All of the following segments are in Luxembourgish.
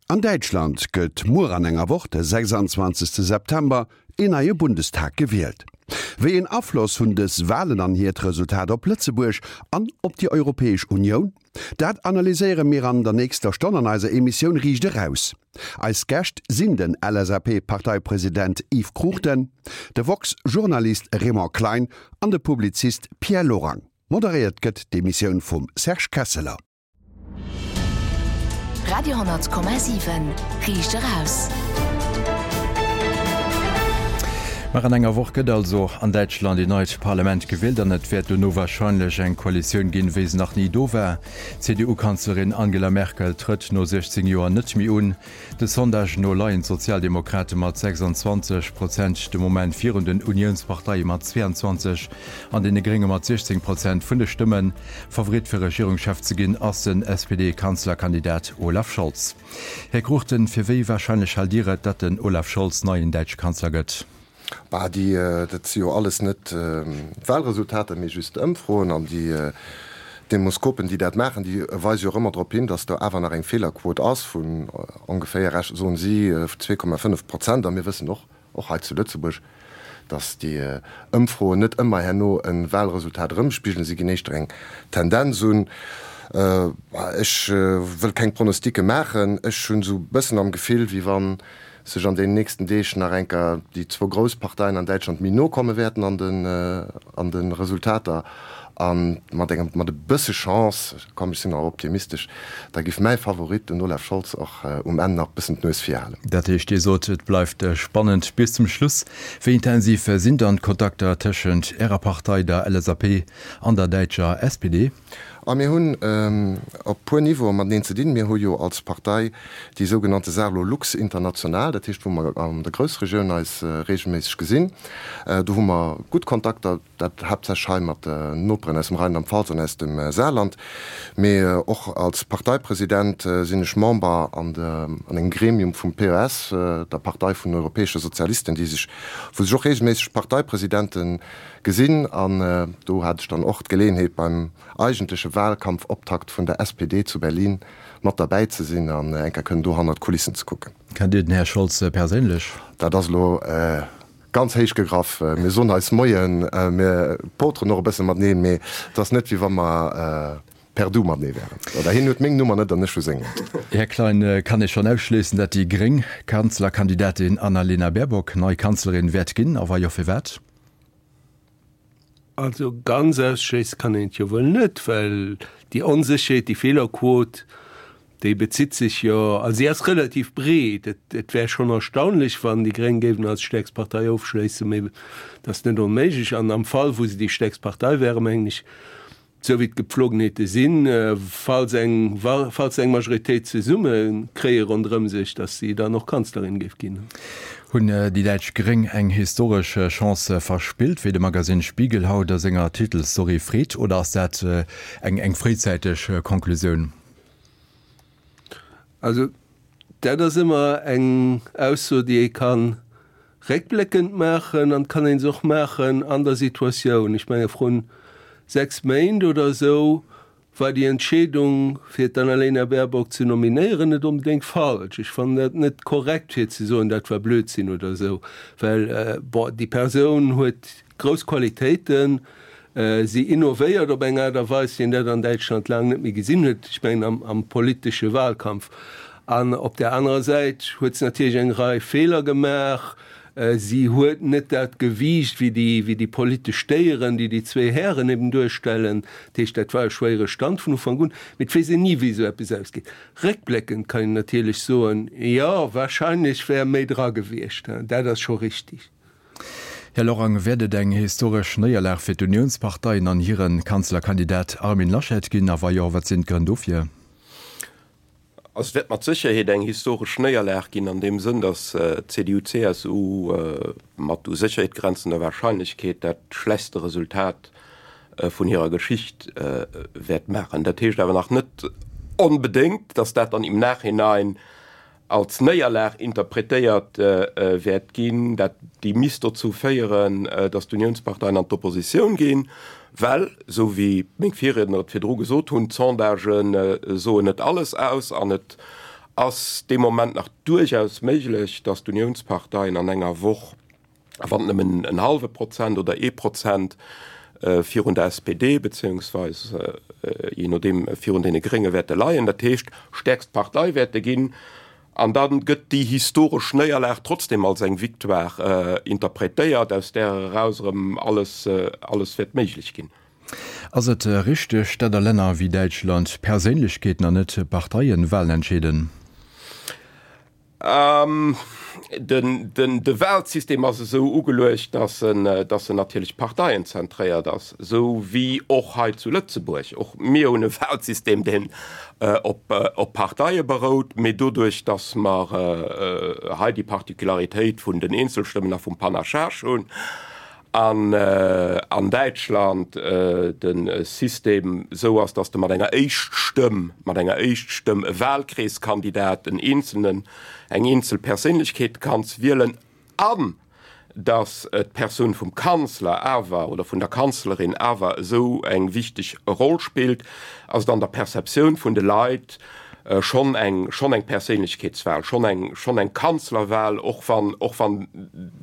An Däitschland gëtt muer an enger Woch, de 26 September, een neie Bundestag gewielt. Wéi een Afloss hunn dës Walen an hiert Resultat op Lëtzebuerg an op déi Europäesch Unioun? Dat analyséiere mir an der nächster Stonn an eiser Emissioun Riicht Eraus. Eis Gäscht sinn den LSAP-Parteipresident Yves Cruchten, de woxx-Journalist Raymond Klein an de Publizist Pierre Lorang. Moderéiert gëtt d'Emissioun vum Serge Kesseler. Radio,7 Riicht eraus. Nach an enger Woch gëtt also an Däitschland een neit Parlament gewielt an et wäert dono warscheinlech eng Koalitioun ginn, wéi se nach ni do war. D'CDU-Kanzlerin Angela Merkel trëtt no 16 Joer net méi un. De Sondagen no leien d'Sozialdemokrate mat 26 Prozent de Moment virun den Uniounsparteie mat 22 an deene Grénge mat 16 Prozent vun de Stëmmen. Favorit fir Regierungschef ze ginn ass den SPD-Kanzlerkandidat Olaf Scholz. Här Cruchten, fir wéi warscheinlech haalt Dir et, datt den Olaf Scholz neien däitsche Kanzler gëtt? Bah, déi, dat si jo alles net d'Wahlresultater, mee just Ëmfroen. An déi Demoskopen, déi dat maachen, déi weise jo och ëmmer drop hin, datt do awer nach eng Feelerquot ass vun ongeféier, soen si, 2,5 Prozent. A mir wëssen och, och hei zu Lëtzebuerg, datt déi Ëmfroen net ëmmer herno e Wahlresultat erëmspigelen. Si ginn éischter eng Tendenz un. Ech wëll keng Pronosticke maachen. Ech hunn esou e bëssen am Gefill, wéi wann sech an den nächsten Deeg nach enker déi zwou grouss Parteien an Däitschland méi no komme wäerten an den an de Resultater a mat engem mat e bësse Chance, komm ech sinn nach optimistesch, da giff mäi Favorit, den Olaf Scholz, och um Enn nach bëssen d'Nues vir halen. Dat heescht, Dir sot, et bleift spannend bis zum Schluss. Wéi intensiv sinn dann d'Kontakter tëschent Ärer Partei, der LSAP, an der däitscher SPD? A mir hunn op puer Niveaue mateneen ze dinn. Mir hu jo als Partei déi sougenannte Saarlorlux International, dat heescht wou mer an der Groussregioun eis regelméisseg gesinn. Do hu mer gutt Kontakter, dat haaptsächlech hei mat den Noperen aus dem Rheinland-Pfalz an aus dem Saarland. Mee och als Parteipresident sinn ech Member an engem Gremium vum PES, der Partei vun den Europäesche Sozialisten, déi sech, wou sech och regelméisseg Parteipresidente Gesinn an do hat ech dann och d'Geleeënheet beim eigentleche Wahlkampfoptakt vun der SPD zu Berlin mat derbäi ze sinn an eng Kéier kënnen do hannert d'Kulissen ze kucken. Kennt Dir den Här Scholz perséinlech? Dat ass elo ganz héich gegraff. Mir soen eis Moien, mir poteren och e bësse mateneen, mee et ass net wéi wa mer per Du matenee wären. Oder hien huet meng Nummer net an ech hu seng net. Här Klein, kann ee schonn ausschléissen, datt déi gréng Kanzlerkandidatin Annalena Baerbock nei Kanzlerin wäert ginn? A wa jo, firwat? Also ganz ausschléisse kann een et jo wuel net, well déi Onsécherheet, déi Feelerquot, déi bezitt sech jo, also si ass relativ breet. Et et wär schonn erstaunlech, wann déi Gréng géifen als stäerkst Partei ofschléissen, mee et ass net onméiglech. An am Fall, wou se déi stäerkst Partei wären, mengen ech, Esou wéi d'Gepflogenheete sinn, falls eng, falls se eng Majoritéit zesumme kréie ronderëm sech, datt si dann och Kanzlerin géif ginn. Hunn déi däitsch Gréng eng historesch Chance verspillt, wéi de Magasinn Spiegel haut a senger Titelstory freet, oder ass dat eng eng fréizäiteg Konklusioun? Also dat ass ëmmer eng Ausso, déi ee ka réckbléckend maachen an et kann ee se och maachen an der Situatioun. Ech menge vrun 6 Méint oder esou war déi Entscheedung, fir d'Annalena Baerbock ze nominéieren, net onbedéngt falsch. Ech fannen dat net korrekt, fir ze soen, dat war Blödsinn oder esou, well, bon, déi Persoun huet grouss Qualitéiten, Si innovéiert op eng Aart a Weis, wéi een dat an Däitschland laang net méi gesinn huet, ech mengen am, am politesche Wahlkampf. An op där anerer Säit huet se natierlech eng Rei Feeler gemaach. Si huet net dat Gewiicht wéi déi, wéi déi politesch Déieren, déi déi zwee Hären eben duerstellen. Dat heescht, dat war e schwéiere Stand vun Ufank un. Mee et weess een ni, wéi esou eppes ausgeet. Réckbléckend kann een natierlech soen, jo, wahrscheinlech wär méi dra gewiescht. Dat ass scho richtig. Här Lorang, wäert et eng historesch Néierlag fir d'Uniounsparteien an hire Kanzlerkandidat Armin Laschet ginn? A wa jo, wat sinn d'Grënn dofir? Also et wäert mat Sécherheet eng historesch Néierlag ginn an deem Sënn, datt d'CDU-CSU mat u Sécherheet grenzender Wahrscheinlechkeet dat schlechtste Resultat vun hirer Geschicht wäert maachen. Dat heescht awer nach net onbedéngt, datt dat dann im Nachhinein als Néierlag interpretéiert wäert ginn, dat déi misst dozou féieren, datt d'Uniounsparteien an d'Oppositioun ginn, well, esou wéi meng Virriedner et virdru gesot hunn, d'Sondagen soen net alles aus an et. Ass dee Moment nach duerchaus méiglech, datt d'Uniounsparteien an enger Woch, a wann et nëmmen en hallwe Prozent oder ee Prozent virun der SPD beziéungsweis jee nodeem virun deene Grénge wäerte leien, dat heescht stäerkst Partei wäerte ginn, an da gëtt déi historesch Néierlag trotzdem als eng Victoire interpretéiert, aus där eraus erëm alles alles wäert méiglech ginn. Ass et richteg, dat a Länner wéi Däitschland Perséinlechkeeten an net Parteien Walen entscheeden? De Walsystem ass esou ugeluecht, datt en natierlech parteienzentréiert ass, esou wéi och hei zu Lëtzebuerg. Och mir hunn e Walsystem, deen op Parteie berout, mee doduerch, datt mer hei déi Particularitéit vun den Eenzelstëmmen a vum Panachage hunn, An an Däitschland de System esou ass, datt s de mat enger Éischtstëmm, mat enger Éischtstëmm e Wahlkreeskandidat, en eenzelnen, eng eenzel Perséinlechkeet kanns wielen an datt d'Persoun vum Kanzler awer oder vun der Kanzlerin awer esou eng wichteg Roll spillt, ass et an der Perceptioun vun de Leit schonn eng, schonn eng Perséinlechkeetswahl, schonn eng, schonn eng Kanzlerwahl, och wann, och wann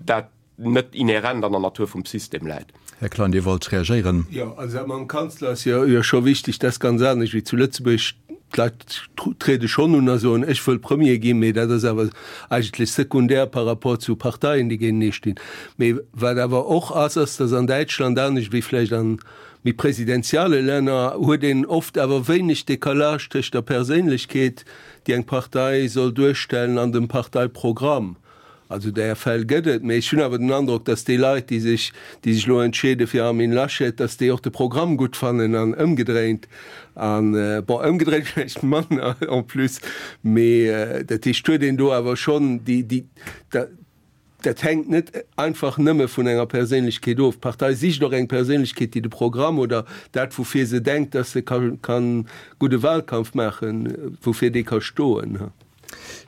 dat net inhärent an der Natur vum System läit. Här Klein, Dir wollt reagéieren. Jo, also dat mam Kanzler ass jo scho wichteg. Dat ass ganz anescht wéi zu Lëtzebuerg. D'Leit triede schonn un a soen, ech wëll Premier ginn, mee dat ass awer eigentlech sekundär par rapport zu Parteien, déi géintenee stinn. Mee wat awer och ass, ass, datt an Däitschland, anescht wéi vläicht an méi presidentiale Länner, huet een oft awer wéineg Décalage tëscht der Perséinlechkeet, déi eng Partei soll duerstellen, an dem Parteiprogramm. Also där Fäll gëtt et, mee ech hunn awer den Androck, datt déi Leit, déi sech, déi sech elo entscheede fir Armin Laschet, datt déi och de Programm gutt fannen an ëmgedréint. An, bon, ëmgedréint vläicht manner en plus, mee dat heescht, huet een do awer schonn déi, déi, dat hänkt net einfach nëmme vun enger Perséinlechkeet of. D'Partei sicht och eng Perséinlechkeet, déi de Programm oder dat, woufir se denkt, datt se ka gudde Wahlkampf maachen, woufir déi ka stoen.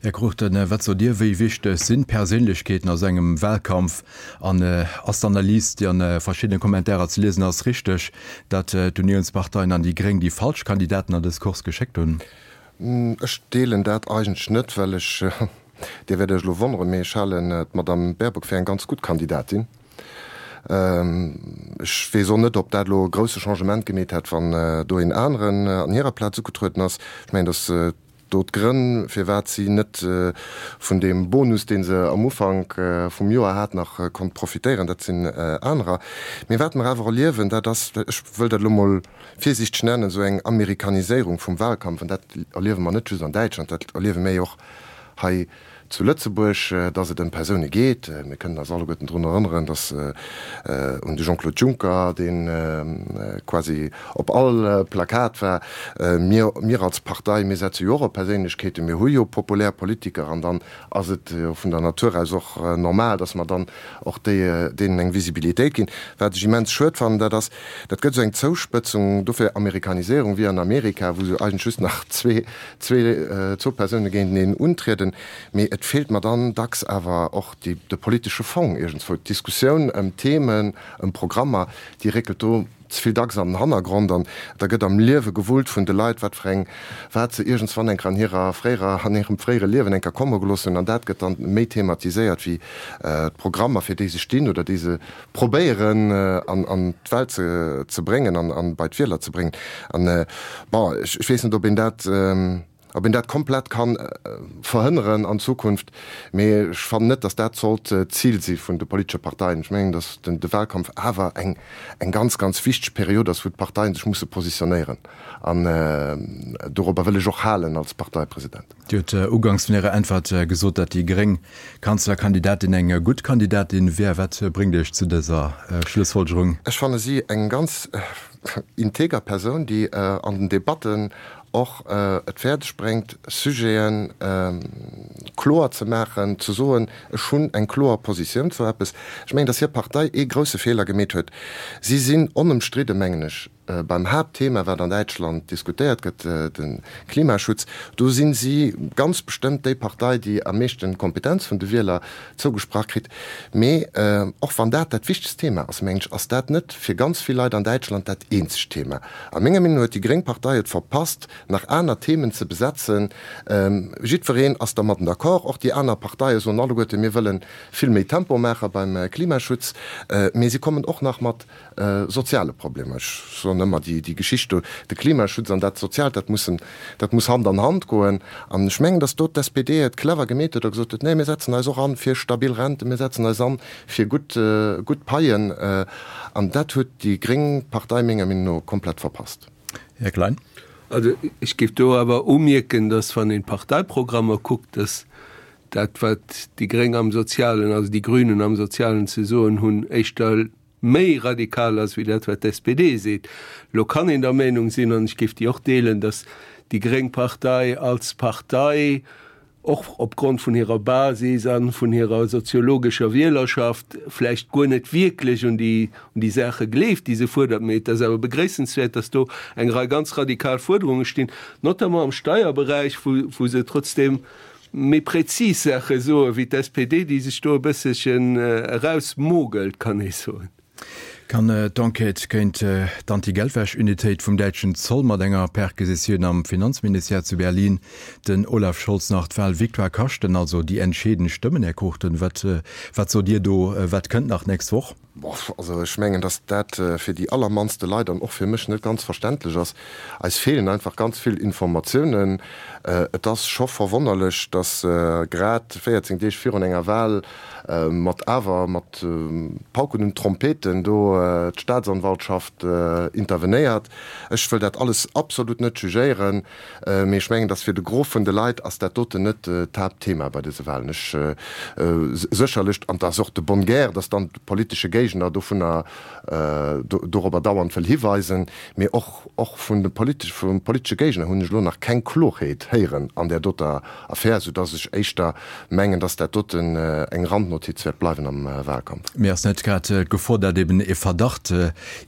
Här Cruchten, wat sot Dir, wéi wichteg sinn d'Perséinlechkeeten a sou engem Wahlkampf? An ass d'Analys, déi an verschiddene Kommentarer ze liesen ass, richteg, datt d'Uniounsparteien an déi Gréng déi falsch Kandidaten an dës Course geschéckt hunn? Ech deelen dat eigentlech net, well ech, Dir wäert Iech elo wonneren, mee ech halen d'Madame Baerbock fir eng ganz gutt Kandidatin. Ech weess och net, ob dat elo e grousse Changement gemeet hätt, wann do een aneren an hirer Plaz ugetrueden ass. Ech mengen, datt Do d'Grënn, firwat si net vun deem Bonus, dee se am Ufank vum Joer hat, nach konnt profitéieren, dat sinn anerer. Mee wat mer awer erliewen, dat ass, ech wëll dat elo mol virsiichteg nennen, esou eng Amerikaniséierung vum Wahlkampf. An dat erliewe mer net just an Däitschland, dat erliewe mir jo och hei zu Lëtzebuerg, dass et ëm Persoune geet. Mir kënnen eis alleguerten drun erënneren, dass un de Jean-Claude Juncker, dee quasi op all Plakat war. Mir, mir als Partei, mir setze jo och op Perséinlechkeeten. Mir hu jo populär Politiker an dann ass et jo vun der Natur aus och normal, dass mer dann och déi, deenen eng Visibilitéit ginn. Wat ech immens schued fannen, dat ass, dat gëtt esou eng Zouspëtzung, dofir Amerikaniséierung, wéi an Amerika, wou se eigentlech just nach zwee, zwee, zwou Persoune géinteneen untrieden, mee et feelt mer dann dacks awer och déi, de politesche Fong iergendswou. D'Diskussioun ëm Themen, ëm Programmer, déi réckelt do ze vill dacks an den Hannergrond an da gëtt am Liewe gewullt vun de Leit, wat fir eng, wat se iergendswann eng Kéier an hirer fréierer, an hirem fréiere Liewen eng Kéier komme gelooss hunn an dat gëtt dann méi thematiséiert wéi d'Programmer, fir déi se stinn oder déi se probéieren an d'Welt ze bréngen an bei d'Wieler ze bréngen. An, bon, ech weess net, ob een dat, ob een dat komplett ka verhënneren an Zukunft, mee ech fannen net, datt dat sollt d'Zil si vun de politesche Parteien. Ech mengen, datt de Wahlkampf awer eng ganz, ganz wichteg Period ass, wou d'Parteien sech musse positionéieren. An dorobber wëll ech och halen als Parteipresident. Dir hutt uganks vun Ärer Äntwert gesot, datt déi gréng Kanzlerkandidatin eng gutt Kandidatin wär. Wat bréngt Iech zu dëser Schlussfolgerung? Ech fanne si eng ganz integer Persoun, déi an den Debatten och et fäerdeg bréngt, Sujete kloer ze maachen, ze soen, ech hunn eng kloer Positioun zu eppes. Ech mengen, datt hir Partei ee grousse Feeler gemeet huet. Si sinn onëmstridde, mengen ech. Beim Haaptthema, wat an Däitschland diskutéiert gëtt, de Klimaschutz, do si si ganz bestëmmt déi Partei, déi am meeschten Kompetenz vun de Wieler zougesprach kritt. Mee och wann dat dat wichtegst Thema ass, mengen ech, ass dat net fir ganz vill Leit an Däitschland dat eenzegt Thema. A menger Meenung no huet déi gréng Partei et verpasst, nach aner Themen ze besetzen. Jiddwereen ass dermadden d'accord, och déi aner Parteie soen alleguerte, mir wëlle vill méi Tempo maache beim Klimaschutz. Mee si kommen och nach mat soziale Problemer. Ech soen ëmmer, déi, déi Geschicht do, de Klimaschutz an dat Soziaalt, dat mussen, dat muss Hand an Hand goen. An ech mengen, datt do d'SPD et clever gemeet huet a gesot huet, Nee, mir setzen eis och an fir stabil Renten, mir setzen eis an fir gutt, gutt Paien. An dat huet déi gréng Partei menger Meenung no komplett verpasst. Här Klein. Also ech géif do awer umierken, datt wann een d'Parteiprogrammer kuckt, datt dat wat déi Gréng am Sozialen, also déi Grünen am Sozialen ze soen hunn, éischter méi radikal ass wéi dat wat d'SPD seet. Elo kann een der Meenung sinn, an ech géif déi och deelen, datt déi gréng Partei als Partei, och opgrond vun hirer Basis a vun hirer soziologescher Wielerschaft, vläicht guer net wierklech un déi un déi Saache gleeft, déi se fuerdert. Mee et ass awer begréissenswäert, datt do eng Rei ganz radikal Fuerderunge stinn, notamment am Steierberäich, wou wou se trotzdeem méi präzis Saache soe wéi d'SPD, déi sech do e bësselchen erausmogelt, kann ee soen. Kann d'Enquête géint d'Anti-Geldwäsch-Unitéit vum däitschen Zoll mat enger Perquisitioun am Finanzministère zu Berlin den Olaf Scholz nach d'Wahlvictoire kaschten, also déi entscheedend Stëmmen? Här Cruchten, wat wat sot Dir do? Wat kënnt nach d'nächst Woch? Boff, also ech mengen, datt dat fir déi allermannste Leit an och fir mech net ganz verständlech ass. Eis feelen einfach ganz vill Informatiounen. Et ass scho verwonnerlech, datt grad 14 Deeg virun enger Wahl mat awer mat Pauken und Trompeten do d'Staatsanwaltschaft intervenéiert. Ech wëll dat alles absolut net jugéieren. Mee ech mengen, dass fir de Gros vun de Leit ass dat doten net d'Haaptthema bei dëse Wahlen. Ech sécherlech, an et ass och de bonne guerre, dass dann de politesche Géigner dovunner, dorobber dauernd wëll hiweisen, mee och, och vun de politesch, vum politesche Géigner hunn ech elo nach keng Klorheet héieren an där doter Affär, soudass ech éischter mengen, dass dat doten eng Randnotiz wäert bleiwen am Wahlkampf. Mee ass net grad d'Gefor, dat eben e Verdacht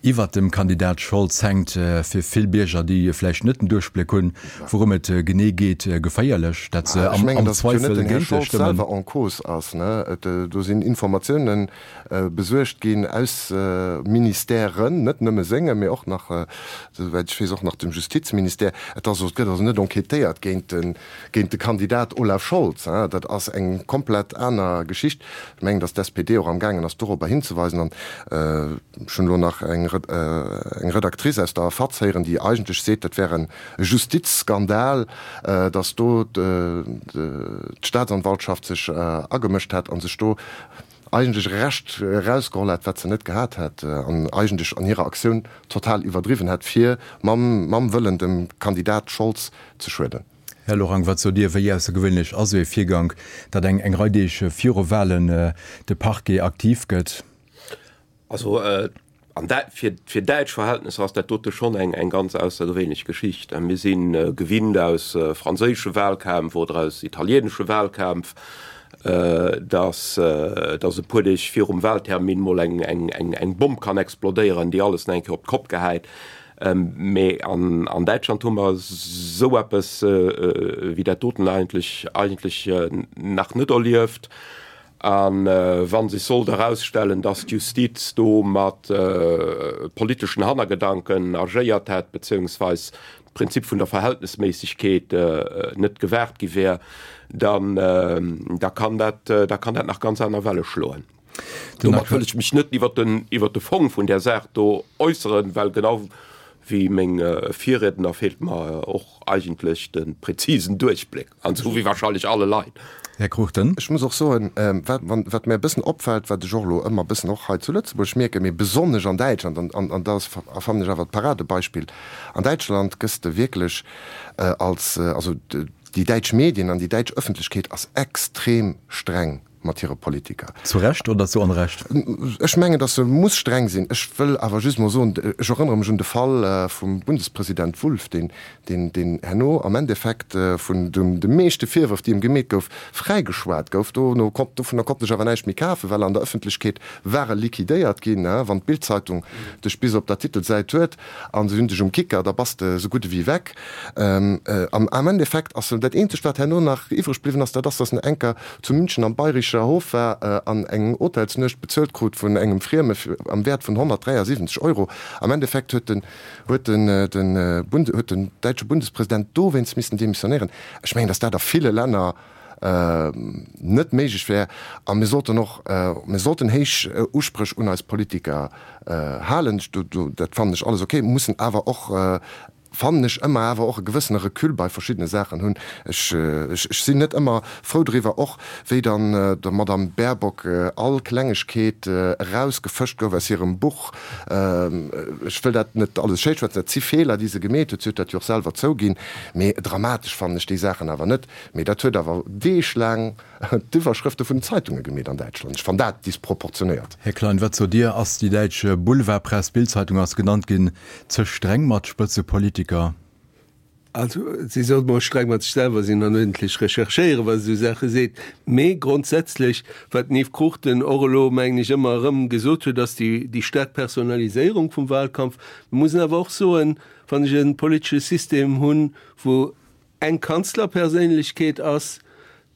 iwwert dem Kandidat Scholz hänkt, fir vill Bierger, déi vläicht net den Duerchbléck hunn, wourëm et genee geet, geféierlech, dat se am Zweifel géint e stëmmen? Ech mengen, datt et jo net den Här Scholz selwer en cause ass. Do sinn Informatioune besuergt ginn aus Ministèren, net nëmme sengem, mee och nach, esouwäit ech weess, och nach dem Justizministère. Et ass, et gëtt also net enquêtéiert géint de géint de Kandidat Olaf Scholz. Dat ass eng komplett aner Geschicht. Ech mengen, datt d'SPD och amgaangen ass, dorobber hinzeweisen. An ech hunn elo nach eng Redactrice aus der FAZ héieren, déi eigentlech seet, dat wär e Justizskandal, datt do d'Staatsanwaltschaft sech agemëscht hätt a sech do eigentlech e Recht erausgeholl hätt, wat se net gehat hätt an eigentlech an hirer Aktioun total iwwerdriwwen hätt, fir mam Wëllen dem Kandidat Scholz ze schueden. Här Lorang, wat sot Dir, wéi aussergewéinlech ass esou ee Virgank, datt eng eng Rei Deeg viru Wahlen de Parquet aktiv gëtt? Also an dä fir fir däitsch Verhältnesser ass dat dote schonn eng eng ganz aussergewéinlech Geschicht. Mir si gewinnt aus franséische Wahlkämpf oder aus italienesche Wahlkämpf, datt datt e puer Deeg virum Wahltermin mol eng eng eng eng Bomm kann explodéieren, déi alles nach eng Kéier op d'Kopp gehäit. Mee an an Däitschland hu mer esou eppes wéi dat doten eigentlech eigentlech nach net erlieft. A wa sech sollt erausstellen, datt d'Justiz do mat politeschen Hannergedanken agéiert hätt, beziéungsweis d'Prinzip vun der Verhältnesméissegkeet net gewaart gi wär, dann da kann dat, da kann dat nach ganz aner Welle schloen. Domat wëll ech mech net iwwert den, iwwert de Fong vun där Saach do äusseren, well genau wéi meng Virriedner feelt mer och eigentlech de präzisen Duerchbléck, an esou wéi wahrscheinlech alle Leit. Här Cruchten. Ech muss och soen, wat, wat mär e bëssen opfält, wat ech och elo ëmmer e bëssen och hei zu Lëtzebuerg mierken, mee besonnesch an Däitschland, an, an dat ass, fannen ech awer d'Paradebeispill, an Däitschland gëss de wierklech als, also déi däitsch Medien an déi däitsch Ëffentlechkeet ass extrem streng. mat hire Politiker. Zu Recht oder zu Onrecht? Ech mengen, datt se muss streng sinn. Ech wëll awer just emol soen, ech erënnere mech un de Fall vum Bundespresident Wulff, deen, deen, deen herno am Endeffekt vun de meeschte Virwërf, déi em gemeet gouf, fräigeschwat gouf. Dono konnt, dovunner konnt ech awer näischt méi kafen, well an der Ëffentlechkeet war e liquidéiert ginn. Wann d'Bild-Zeitung dech bis op der Titelsäit huet a se hunn dech um Kicker, da bass de esou gutt ewéi weg. Am Endeffekt ass dat eenzegt, wat herno nach iwwreg bliwwen ass, dat ass, datt en enker zu München am Bayrischer Hof war an eng Hotelsnuecht bezuelt krut vun engem Frieme am Wäert vun 173 Euro. Am Endeffekt huet den huet den den Bund huet den däitsche Bundespresident dowéinst missen demissionéieren. Ech mengen, datt dat a ville Länner net méiglech wär. A mir sollten och mir sollten héich Uspréch un eis Politiker halen. Dat fannen ech alles ok, mussen awer och fannen ech, ëmmer awer och e gewëssene Recul bei verschiddene Saachen hunn. Ech, ech sinn net ëmmer frou driwwer, och wéi dann der Madame Baerbock all Klengegkeet erausgefëscht gouf aus hirem Buch. Ech wëll dat net alles schéischwätzen, dat si Feeler, déi se gemeet huet, si huet dat jo och selwer zouginn, mee dramatesch fannen ech déi Saachen awer net. Mee dat huet awer deeglaang d'Iwwerschrëfte vun den Zeitunge gemeet an Däitschland. Ech fann dat disproportionéiert. Här Klein, wat sot Dir, ass déi däitsch Boulevardpress, d'Bild-Zeitung ass genannt ginn, ze streng mat Spëtzepolitiker? Also, si sollt mol streng mat sech selwer sinn an uerdentlech recherchéieren, wa se esou Saache seet. Mee grondsätzlech, wat den Yves Cruchten och elo, mengen ech, ëmmer erëm gesot huet, ass déi, déi staark Personaliséierung vum Wahlkampf. Mir mussen awer och soen, wann ech e politesche System hunn, wou eng Kanzlerperséinlechkeet ass,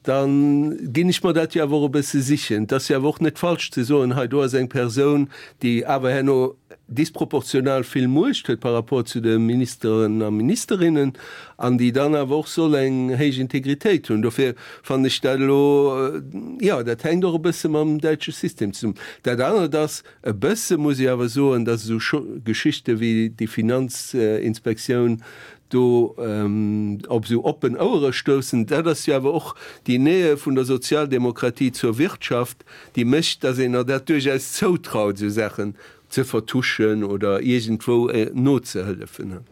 da ginn ech mer dat jo awer och e bësse sichen. Et ass jo awer och net falsch ze soen, hei do ass eng Persoun, déi awer herno disproportional vill Muecht huet par rapport zu de Ministeren a Ministerinnen an déi dann awer och soll eng héich Integritéit hunn. Dofir fannen ech dat elo, jo, dat hänkt och e bësse mam däitsche System zesummen. Dat anert ass, e bësse muss ech awer soen, datt esou Geschichte wéi déi Finanzinspektioun do op esou oppen Ouere stoussen, dat ass jo awer och déi Nähe vun der Sozialdemokratie zur Wirtschaft, déi mécht, datt een der dat duerchaus zoutraut, esou Saachen ze vertuschen oder iergendwou nozehëllefen.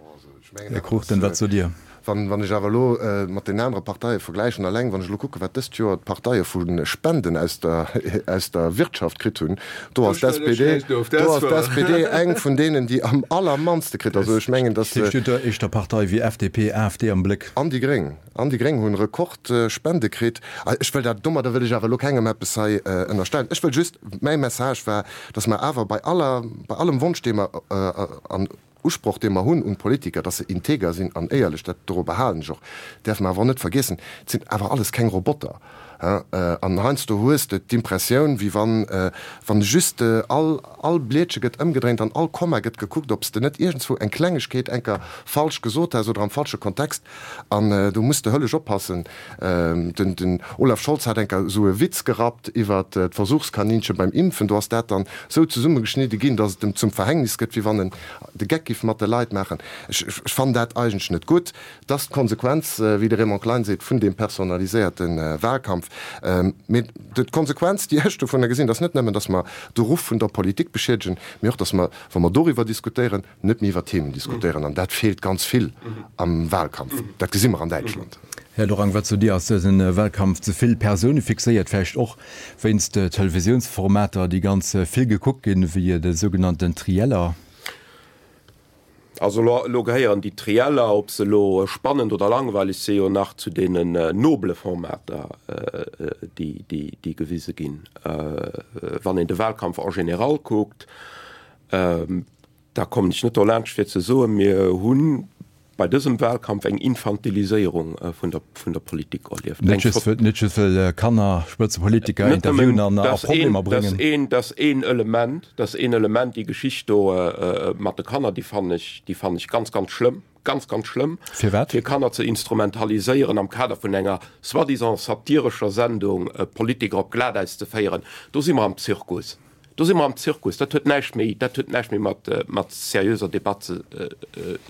Här Cruchten, wat sot Dir? Wann ech awer elo mat den anere Parteie vergläichen, alleng wann ech elo kucken, wat dëst Joer d'Parteie vu Spenden aus der, aus der Wirtschaft kritt hunn, do ass d'SPD, do ass d'SPD eng vun deenen, déi am allermannste kritt. Also ech mengen, datt. Dat heescht, Dir hutt do éischter Parteie wéi FDP, AfD am Bléck? An déi Gréng. An déi Gréng hunn Rekordspende kritt. Ech wëll dat, domadder wëll ech awer elo kengem eppes hei ënnerstellen. Ech wëll just, mäi Message war, datt mer awer bei aller, bei allem Wonsch, dee mer an Usproch, dee mer hunn un d'Politiker, dass se integer sinn an éierlech, dat dorobber halen ech och, däerfe mer awer och net vergiessen, et sinn awer alles keng Roboter. An heiansdo hues de d'Impressioun, wéi wann, wann just all, all Blietche gëtt ëmgedréint an all Komma gëtt gekuckt, ob s de net iergendswou eng Klengegkeet enker falsch gesot häss oder am falsche Kontext. An do muss de hëllesch oppassen. Den Olaf Scholz hat enker esou e Witz gerappt iwwer d'Versuchskaninche beim Impfen. Do ass dat dann esou zesummegeschnidde ginn, datt et em zum Verhängnis gëtt, wéi wann en de Geck giff mat de Leit maachen. Ech fannen dat eigentlech net gutt. Et ass d'Konsequenz, wéi de Raymond Klein seet, vun deem personaliséierte Wahlkampf. Mee d'Konsequenz, déi ech dovunner gesinn, ass net nëmmen, datt mer de Ruff vun der Politik beschiedegen, mee och, datt mer, wa mer doriwwer diskutéieren, net méi iwwer Themen diskutéieren, an dat feelt ganz vill am Wahlkampf. Dat gesi mer an Däitschland. Här Lorang, wat sot Dir, ass dëse Wahlkampf ze vill persounefixéiert, vläicht och wéinst Televisiounsformater, déi ganz vill gekuckt ginn, wéi de sougenannten Trieller? Also elo gehéieren déi Trieller, ob se elo spannend oder langweileg sinn, jo nach zu deenen nobele Formater, déi gewise ginn. Wann een de Wahlkampf en général kuckt, Da kommen ech net dolaanscht fir ze soen, mir hu bei dësem Wahlkampf eng Infantiliséierung vun der, vun der Politik erlieft. Net just, net just wëll Kanner Spëtzepolitiker interviewen an a Problemer bréngen. Dat ass een, dat ass een Element, dat ass een Element, déi Geschicht do mat de Kanner, déi fannen ech, déi fannen ech ganz, ganz schlëmm, ganz, ganz schlëmm. Firwat? Fir Kanner ze instrumentaliséieren am Kader vun enger soi-disant satirescher Sendung, Politiker op Glatäis ze féieren, do si mer am Zirkus. Do si mer am Zirkus. Dat huet näischt méi, dat huet näischt méi mat, mat seriöser Debatt ze,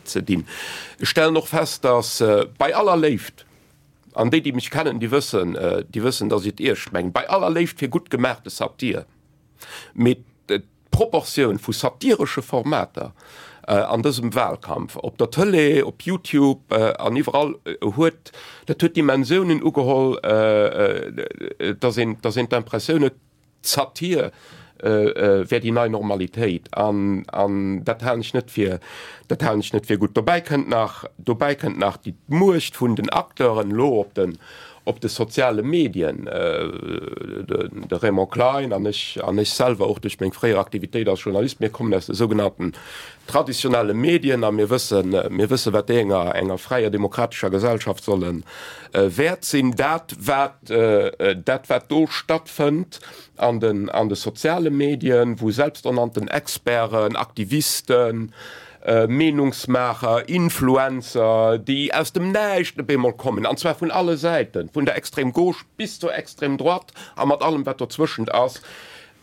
ze dinn. Ech stellen och fest, dass bei aller Léift, an déi, déi mech kennen, déi wëssen, déi wëssen, dass ech et eescht mengen, bei aller Léift fir gutt gemaachte Satir, mee d'Proportioun vu satiresche Formater. An dësem Wahlkampf, op der Tëlee, op Youtube an iwwerall, huet dat huet Dimensiounen ugeholl, dass een, dass een d'Impressioun huet, D'Satir wär déi nei Normalitéit an, an dat halen ech net fir, dat halen ech net fir gutt. Dobäi kënnt nach, dobäi kënnt nach déi d'Muecht vun den Acteuren elo op den, op de soziale Medien. De Raymond Klein an ech, an ech selwer och duerch meng fréier Aktivitéit als Journalist, mir kommen aus de sougenannten traditionelle Medien a mir wëssen, mir wëssen, wat déi enger, enger fräier demokratescher Gesellschaft solle wäert sinn. Dat wat, dat wat do stattfënnt an den, an de soziale Medien, wou selbsternannten Experten, Aktivisten, Meenungsmaacher, Influencer, déi aus dem Näischt op eemol kommen, an zwar vun alle Säiten, vun der Extrême Gauche bis zur Extrême Droite a mat allem wat dozwëschent ass,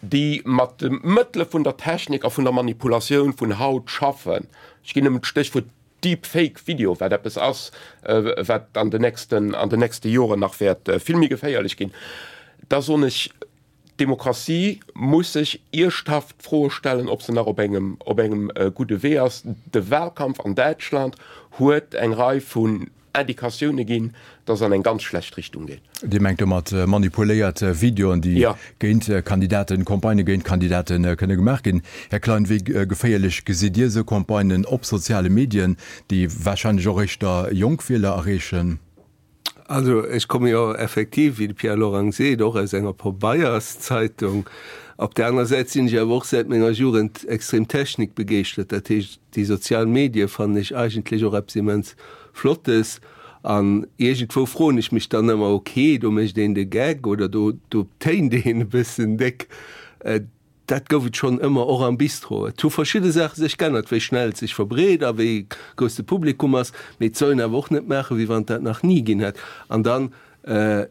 déi mat de Mëttele vun der Technik a vun der Manipulatioun vun haut schaffen, ech ginn nëmmen d'Stéchwuert Deep Fake Video, wat eppes ass, wat an den nächsten, an den nächste Joren nach wäert vill méi geféierlech ginn, da soen ech, d'Demokratie muss sech ierschthaft d'Froe stellen, ob se nach op engem, op engem gudde Wee ass. De Wahlkampf an Däitschland huet eng Rei vun Indikatioune ginn, dass an eng ganz schlecht Richtung geet. Dir mengt domat manipuléiert Videoen, déi géint Kandidaten, Campagnë géint Kandidate kënne gemaach ginn. Här Klein, wéi geféierlech gesitt Dir esou Campagnen op soziale Medien, déi warscheinlech och éischter jonk Wieler erreechen? Also ech komme jo effektiv, wéi de Pierre Lorang seet, och aus enger Pabeierszeitung. Op där aner Säit sinn ech awer och säit menger Jugend extrem technikbegeeschtert. Dat heescht, déi sozial Medie fannen ech eigentlech och eppes immens Flottes. An iergendwou froen ech mech dann ëmmer, ok, do mécht een de Gag oder do do téint een e bëssen déck. Dat gouf et schonn ëmmer, och am Bistro. Et hu verschidde Saache sech g'ännert, wéi schnell et sech verbreet a wéi grouss de Publikum ass. Mee et soll een awer och net maachen, wéi wann et dat nach ni ginn hätt. An dann,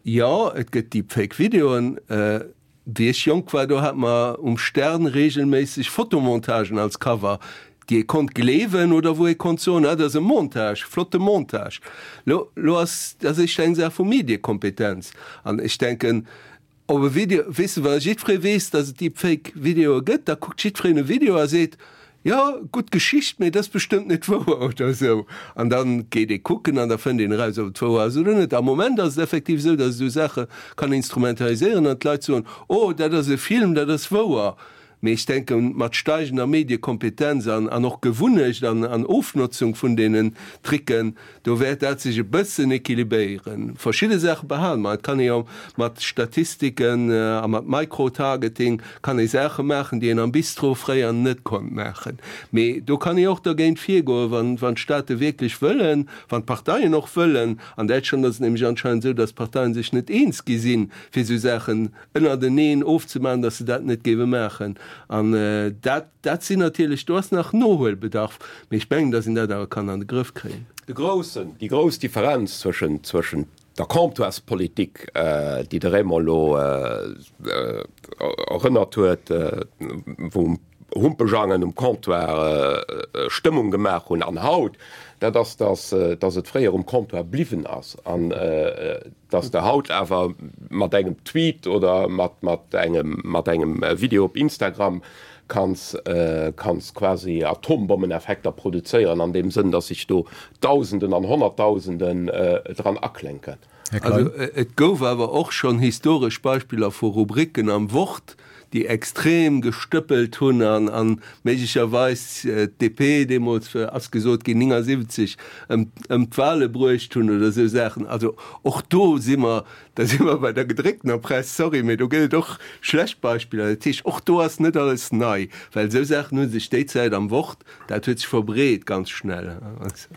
jo, et gëtt Deepfake-Videoen. Wéi ech jonk war, do hat mer um Stern regelméisseg Fotomontagen als Cover, déi ee konnt gleewen oder wou ee konnt soen, ah, dat ass e Montage, flotte Montage. Lo, lo ass dat éischter eng Saach vu Mediekompetenz. An ech denken, op e Video, weess de, wa jiddweree weess, datt et Deepfake-Videoe gëtt, da kuckt jiddwereen e Video a seet, Jo, gutt Geschicht, mee et ass bestëmmt net wouer oder esou. An da geet ee kucken an da fënnt een eraus, ob et wouer ass oder net. Am Moment ass et effektiv esou, datt esou Saache kann instrumentaliséieren an d'Leit soen, Oh, dat ass e Film, dat ass wouer. Mee ech denken, mat steigender Mediekompetenz an an och Gewunnecht an an Ofnotzung vun deenen Tricken, Do wäert dat sech e bëssen équilibéieren. Verschidde Saache behale mer. Et kann ee jo mat Statistiken a mat Micro-Targeting kann ee Saache maachen, déi een am Bistro fréier net konnt maachen. Mee do kann ee och dergéint virgoen, wann, wann d'Staate wierklech wëllen, wann d'Parteien och wëllen. An Däitschland ass et nämlech anscheinend esou, datt d'Parteien sech net eens gi sinn, fir esou Saachen ënnerteneen ofzemaachen, datt se dat net géiwe maachen. An dat. Dat sinn natierlech, do ass nach Nohuelbedarf, mee ech mengen, datt een dat awer kann an de Grëff kréien. De groussen, déi grouss Differenz zwëschen, zwëschen der Comptoirspolitik, déi de Raymond elo erënnert huet, wou Humpejangen um Comptoir Stëmmung gemaach hunn, an haut, dat ass, datt, datt et fréier um Comptoir bliwwen ass an datt de haut awer mat engem Tweet oder mat, mat engem, mat engem Video op Instagram kanns, kanns quasi Atombommeneffekter produzéieren an deem Sënn, datt sech do Dausenden an Honnertdausenden dran aklénken. Här Klein. Also et gouf awer och schonn historesch Beispiller vu Rubriken am Wort, déi extrem gestëppelt hunn an an méiglecherweis d'DP deemools, ass gesot ginn, 79 ëm ëm d'Wale bruecht hunn oder esou Saachen. Also och do si mer, da si mer bei der gedrécktener Press, sorry, mee do gëtt et och schlecht Beispiller. Dat heescht, och do ass net alles nei, well esou Saachen hu sech déi Zäit am Wort, dat huet sech verbreet ganz schnell.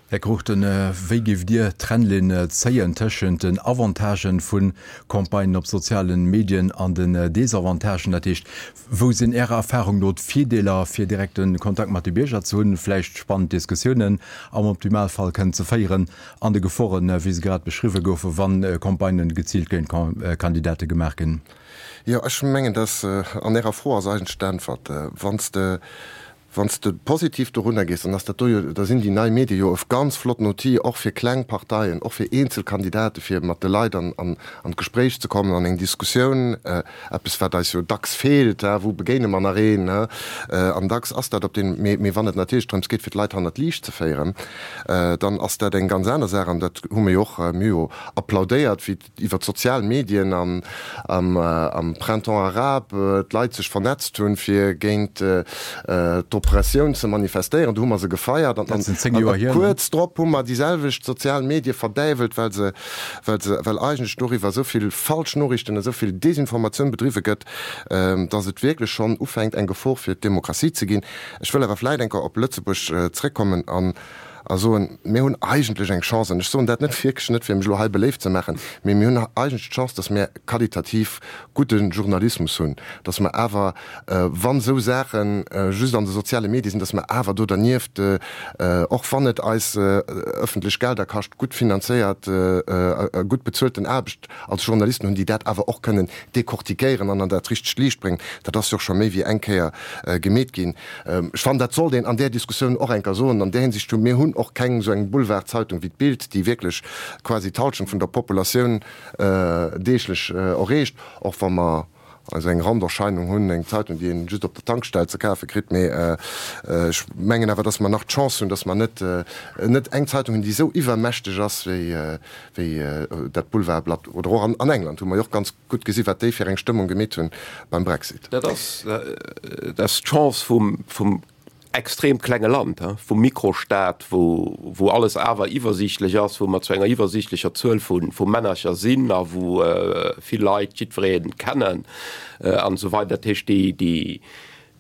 Här Cruchten, wéi géift Dir d'Trennlinn zéien tëschent den Avantagen vu Campagnen op sozialen Medien an den Desavantagen? Dat heescht, wou sinn Ärer Erfahrung no d'Virdeeler, fir direkte Kontakt mat de Bierger ze hunn, vläicht spannend Diskussiounen am Optimalfall kënnen ze féieren, an de Geforen, wéi se grad beschriwwe goufen, wa Campagnen geziilt géint Kandidate gemaach ginn? Jo, ech mengen, dass an Ärer Fro ass eigentlech d'Äntwert. Wann s de. Wann s de positiv dorunner gees, dann ass dat do jo, da sinn déi nei Medie jo e ganz flotten Outil och fir kleng Parteien, och fir eenzel Kandidate fir mat de Leit an an d'Gespréich ze kommen, an eng Diskussioun, eppes wat eis jo dacks feelt, wou begéine mer nach een, an dacks ass dat op den, mee mee wann et natierlech drëms geet fir d'Leit hannert d'Liicht ze féieren, dann ass dat eng ganz aner Saach an dat hu mir jo och, mir hu jo applaudéiert wéi iwwer d'sozial Medien an am Printemps arabe d'Leit sech vernetzt hunn, fir géint d'Oppressioun ze manifestéieren. Do hu mer se gefeiert. An kuerz drop hu mer déi selwecht sozial Medie verdäiwelt, well se, well se, well eigentlech doriwwer esou vill falsch Noriichten, esou vill Desinformatioun bedriwwe gëtt, datt et wierklech schonn ufänkt eng Gefor fir d'Demokratie ze ginn. Ech wëll awer vläicht eng Kéier op Lëtzebuerg zréckkommen an a soen, mir hunn eigentlech eng Chance, an ech soen dat net wierklech net, fir mech elo hei beléift ze maachen, mee mir hunn eigentlech d'Chance, datt mir qualitativ gudde Journalismus hunn, datt mer awer, wann esou Saache just an de soziale Medie sinn, datt mer awer do dernieft, och wann et eis ëffentlech Gelder kascht, gutt finanzéiert a gutt bezuelten Aarbecht als Journalisten hunn, déi dat awer och kënnen decortiquéieren an an dat richtegt Liicht bréngen. Dat ass jo och scho méi wéi eng Kéier gemeet ginn. Ech fannen, dat sollt een an där Diskussioun och eng Kéier soen. An där Hinsicht hu mir hunn och keng esou eng Boulevardzeitung wéi d'Bild, déi wierklech quasi d'Halschent vun der Populatioun deeglech erreecht, och wa mer esou eng Randerscheinung hunn, eng Zeitung, déi een just op der Tankstell ze kafe kritt. Mee ech mengen awer, datt mer nach d'Chance hunn, datt mer net net eng Zeitung hunn, déi esou iwwermächteg ass wéi wéi dat Boulevardblatt. Oder och an England hu mer jo och ganz gutt gesi wat déi fir eng Stëmmung gemeet hunn beim Brexit. Dat ass dat ass d'Chance vum vum extrem klenge Land, vum Mikrostaat, wou wou alles awer iwwersiichtlech ass, wou mer zu enger iwwersiichtlecher Zuel vu vu Männercher sinn a wou vill Leit jiddweree kennen an esou weider. Dat heescht déi déi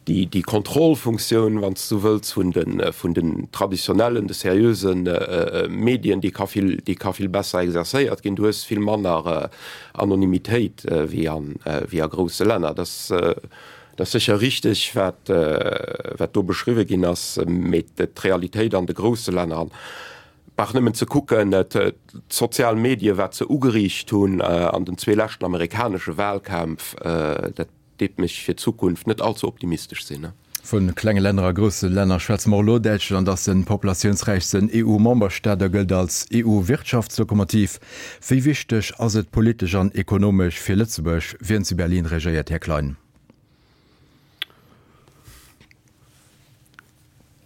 Déi Kontrollfunktioun, wann s de sou wëlls, vun de, vun den traditionellen, de seriöse Medien, déi ka vill, déi ka vill besser exercéiert ginn. Du hues vill manner Anonymitéit wéi an, wéi a grousse Länner. Dat ass, dat ass sécher richteg, wat, wat do beschriwwe ginn ass, mee d'Realitéit an de grousse Länner, an brauch nëmmen ze kucken, d'sozial Medie, wat se ugeriicht hunn an den zwee leschten amerikanesche Wahlkämpf, dat, Deet mech fir d'Zukunft net allze optimistesch sinn. Vu klenge Länner a grousse Länner schwätze mer och elo. Däitschland ass de populatiounsräichsten EU-Memberstaat a gëllt als EU-Wirtschaftslokomotiv. Wéi wichteg ass et politesch an ekonomesch fir Lëtzebuerg, wien zu Berlin regéiert, Här Klein?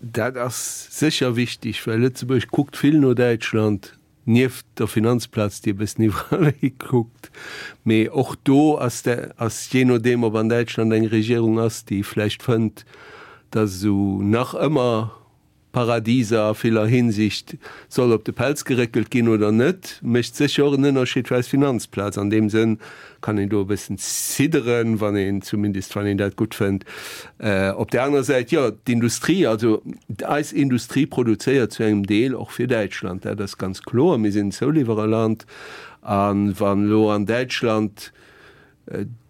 Dat ass sécher wichteg, well Lëtzebuerg kuckt vill no Däitschland. Nieft der Finanzplaz, déi e bëssen iwwerall hikuckt, mee och do ass de, ass jee nodeem, ob an Däitschland eng Regierung ass, déi vläicht fënnt, datt esou nach ëmmer Paradiser a viller Hinsicht soll op de Pelz geréckelt ginn oder net, mécht sécher och en Ënnerscheed fir eis Finanzplaz. An deem Sënn kann een do e bëssen zidderen, wann een, zumindest wann een dat gutt fënnt. Op där anerer Säit, jo, d'Industrie, also eis Industrie produzéiert zu engem Deel och fir Däitschland, dat ass ganz kloer. Mir sinn en Zouliwwererland a wann elo an Däitschland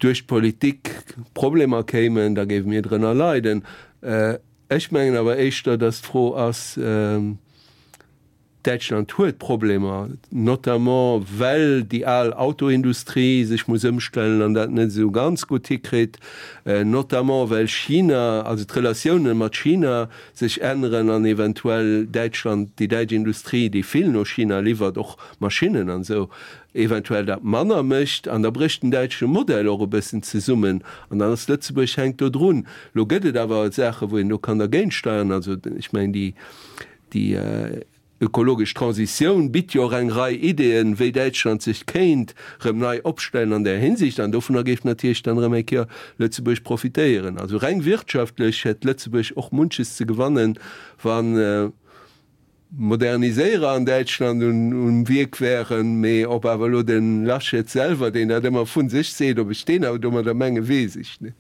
duerch d'Politik Problemer kéimen, da géife mir drënner leiden. Ech mengen awer éischter, datt d'Fro ass, Däitschland huet Problemer, notamment well déi al Autoindustrie sech muss ëmstellen an dat net esou ganz gutt hikritt, notamment well China, also d'Relatioune mat China sech änneren an eventuell Däitschland, déi däitsch Industrie, déi vill no China liwwert, och Maschinnen an esou, eventuell dat manner mécht. An da brécht den däitsche Modell och e bëssen zesummen an dann ass Lëtzebuerg hänkt do drun. Elo gëtt et awer Saache wou een do kann dergéint steiern, also ech mengen déi, Déi ökologesch Transitioun bitt jo och eng Rei Ideeën, wéi Däitschland sech kéint erëm nei opstellen an där Hinsicht. An dovunner géif natierlech dann erëm eng Kéier Lëtzebuerg profitéieren. Also reng wirtschaftlech hätt Lëtzebuerg och munches ze gewannen, wa Moderniséierer an Däitschland um Wierk wären. Mee ob awer elo de Laschet selwer, deen dat ëmmer vu sech seet, ob ech deen awer domadder menge weess ech net.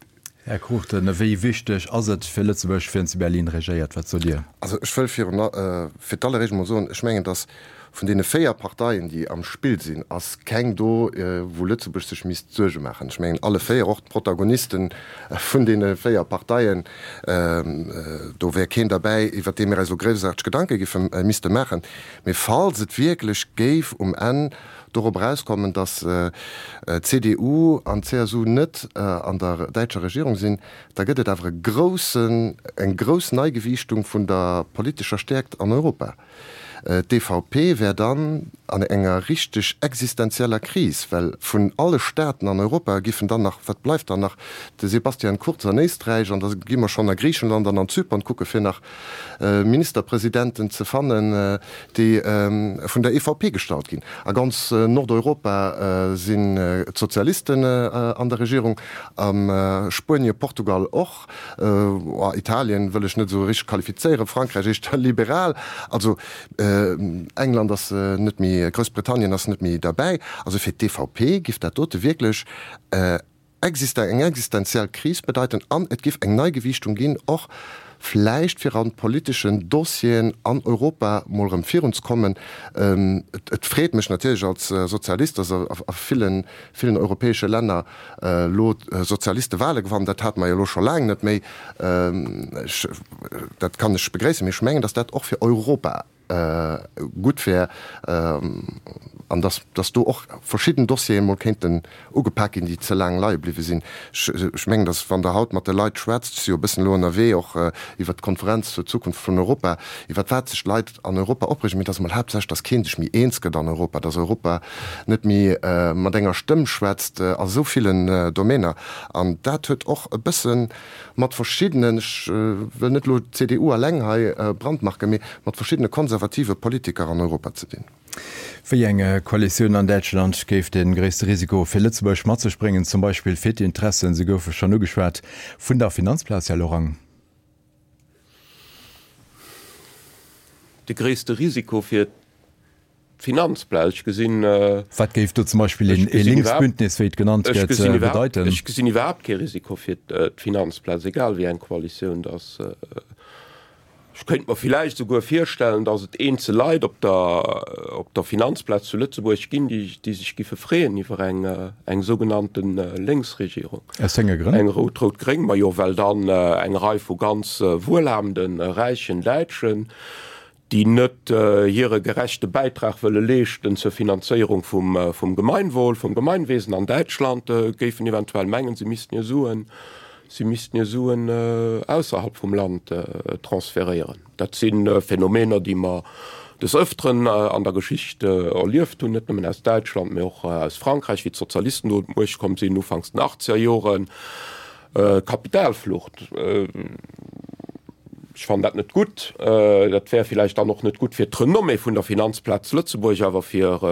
Här Cruchten, wéi wichteg ass et fir Lëtzebuerg, wien zu Berlin regéiert? Wat sot Dir? Also ech wëll virun, fir d'alleréischt emol soen, ech mengen, datt. Vun deene 4 Parteien, déi am Spill sinn, ass keng do, wou Lëtzebuerg sech misst Suerge maachen. Ech mengen, alle 4, och d'Protagoniste vun deene 4 Parteien, do wär keen derbäi, iwwert dee mir eis elo groussarteg Gedanke giffe misste maachen. Mee falls et wierklech géif um Enn dorop erauskommen, datt d'CDU an d'CSU net an der däitscher Regierung sinn, da gëtt et awer e groussen, eng grouss Neigewiichtung vun der politescher Stäerkt an Europa. D'EVP wär dann an enger richteg existenzieller Kris, well vun alle Staaten an Europa giffen dann nach, wat bleift dann nach, de Sebastian Kurz an Éisträich an da gi mer schonn a Griichenland an an Zypern kucke fir nach Ministerpresidenten ze fannen, déi vun der EVP gestallt ginn. A ganz Nordeuropa sinn d'Sozialisten an der Regierung, a Spuenie, Portugal och. Italien wëll ech net esou richteg qualifizéieren, Frankräich éischter liberal, also England ass net méi, Groussbritannien ass net méi derbäi. Also fir d'EVP giff dat dote wierklech eng existenziell Kris bedeiten an et giff eng Neigewiichtung ginn, och vläicht fir an politeschen Dossieren an Europa mol erëm virunzekommen. Et freet mech natierlech als Sozialist, datt a villen, villen europäesche Länner elo d'Sozialiste Wahle gewannen, dat hate mer jo elo scho laang net méi, ech, dat kann ech begréissen, mee ech mengen, datt dat och fir Europa gutt wär an datt, datt do och verschidden Dossiere mol kéinten ugepak ginn, déi ze laang leie bliwwe sinn. Ech mengen, datt wann Der haut mat de Leit schwätzt, ech si jo e bëssen elo ënnerwee och iwwert d'Konferenz zur Zukunft vun Europa, iwwert wat sech d'Leit an Europa opreegen, mee et ass emol haaptsächlech, datt kee sech méi eens gëtt an Europa, datt Europa net méi mat enger Stëmm schwätzt a sou villen Domainer. An dat huet och e bësse mat verschiddenen, ech wëll net elo d'CDU alleng hei brandmarken, mee mat verschiddene konservative Politiker an Europa ze dinn. Wéi eng Koalitioun an Däitschland géif de gréisste Risiko fir Lëtzebuerg mat sech bréngen, zum Beispill fir d'Interessen, se goufe schonn ugeschwat, vun der Finanzplaz, Här Lorang? De gréisste Risiko fir d'Finanzplaz, ech gesinn. Wat géif do zum Beispill een Linksbündnis, wéi et genannt gëtt, bedeiten? Ech gesinn iwwerhaapt kee Risiko fir d'Finanzplaz, egal wéi eng Koalitioun dass. Ech kéint mer villäicht esouguer virstellen, dass et eenzel Leit op der, op der Finanzplaz zu Lëtzebuerg ginn, déi, déi sech giffe freeën iwwer eng, eng sougenannte Lénksregierung. Aus wéi enge Grënn? Eng rout-rout-gréng. Majo, well dann eng Rei vu ganz wuelhabenden, räichen Däitschen, déi net hire gerechte Bäitrag wëlle leeschten zur Finanzéierung vum, vum Gemeinwohl, vum Gemeinwesen an Däitschland, géifen eventuell mengen, se missten hir Suen Si missten hir Suen ausserhalb vum Land transferéieren. Dat si Phänomener, déi mer des Ëfteren an der Geschicht erlieft hunn, net nëmmen aus Däitschland, mee och aus Frankräich, wéi d'Sozialisten do un d'Muecht komm sinn, ufanks den achtzeger Joren. Kapitalflucht, ech fannen dat net gutt. Dat wär villäicht dann och net gutt fir d'Renommée vun der Finanzplaz Lëtzebuerg, awer fir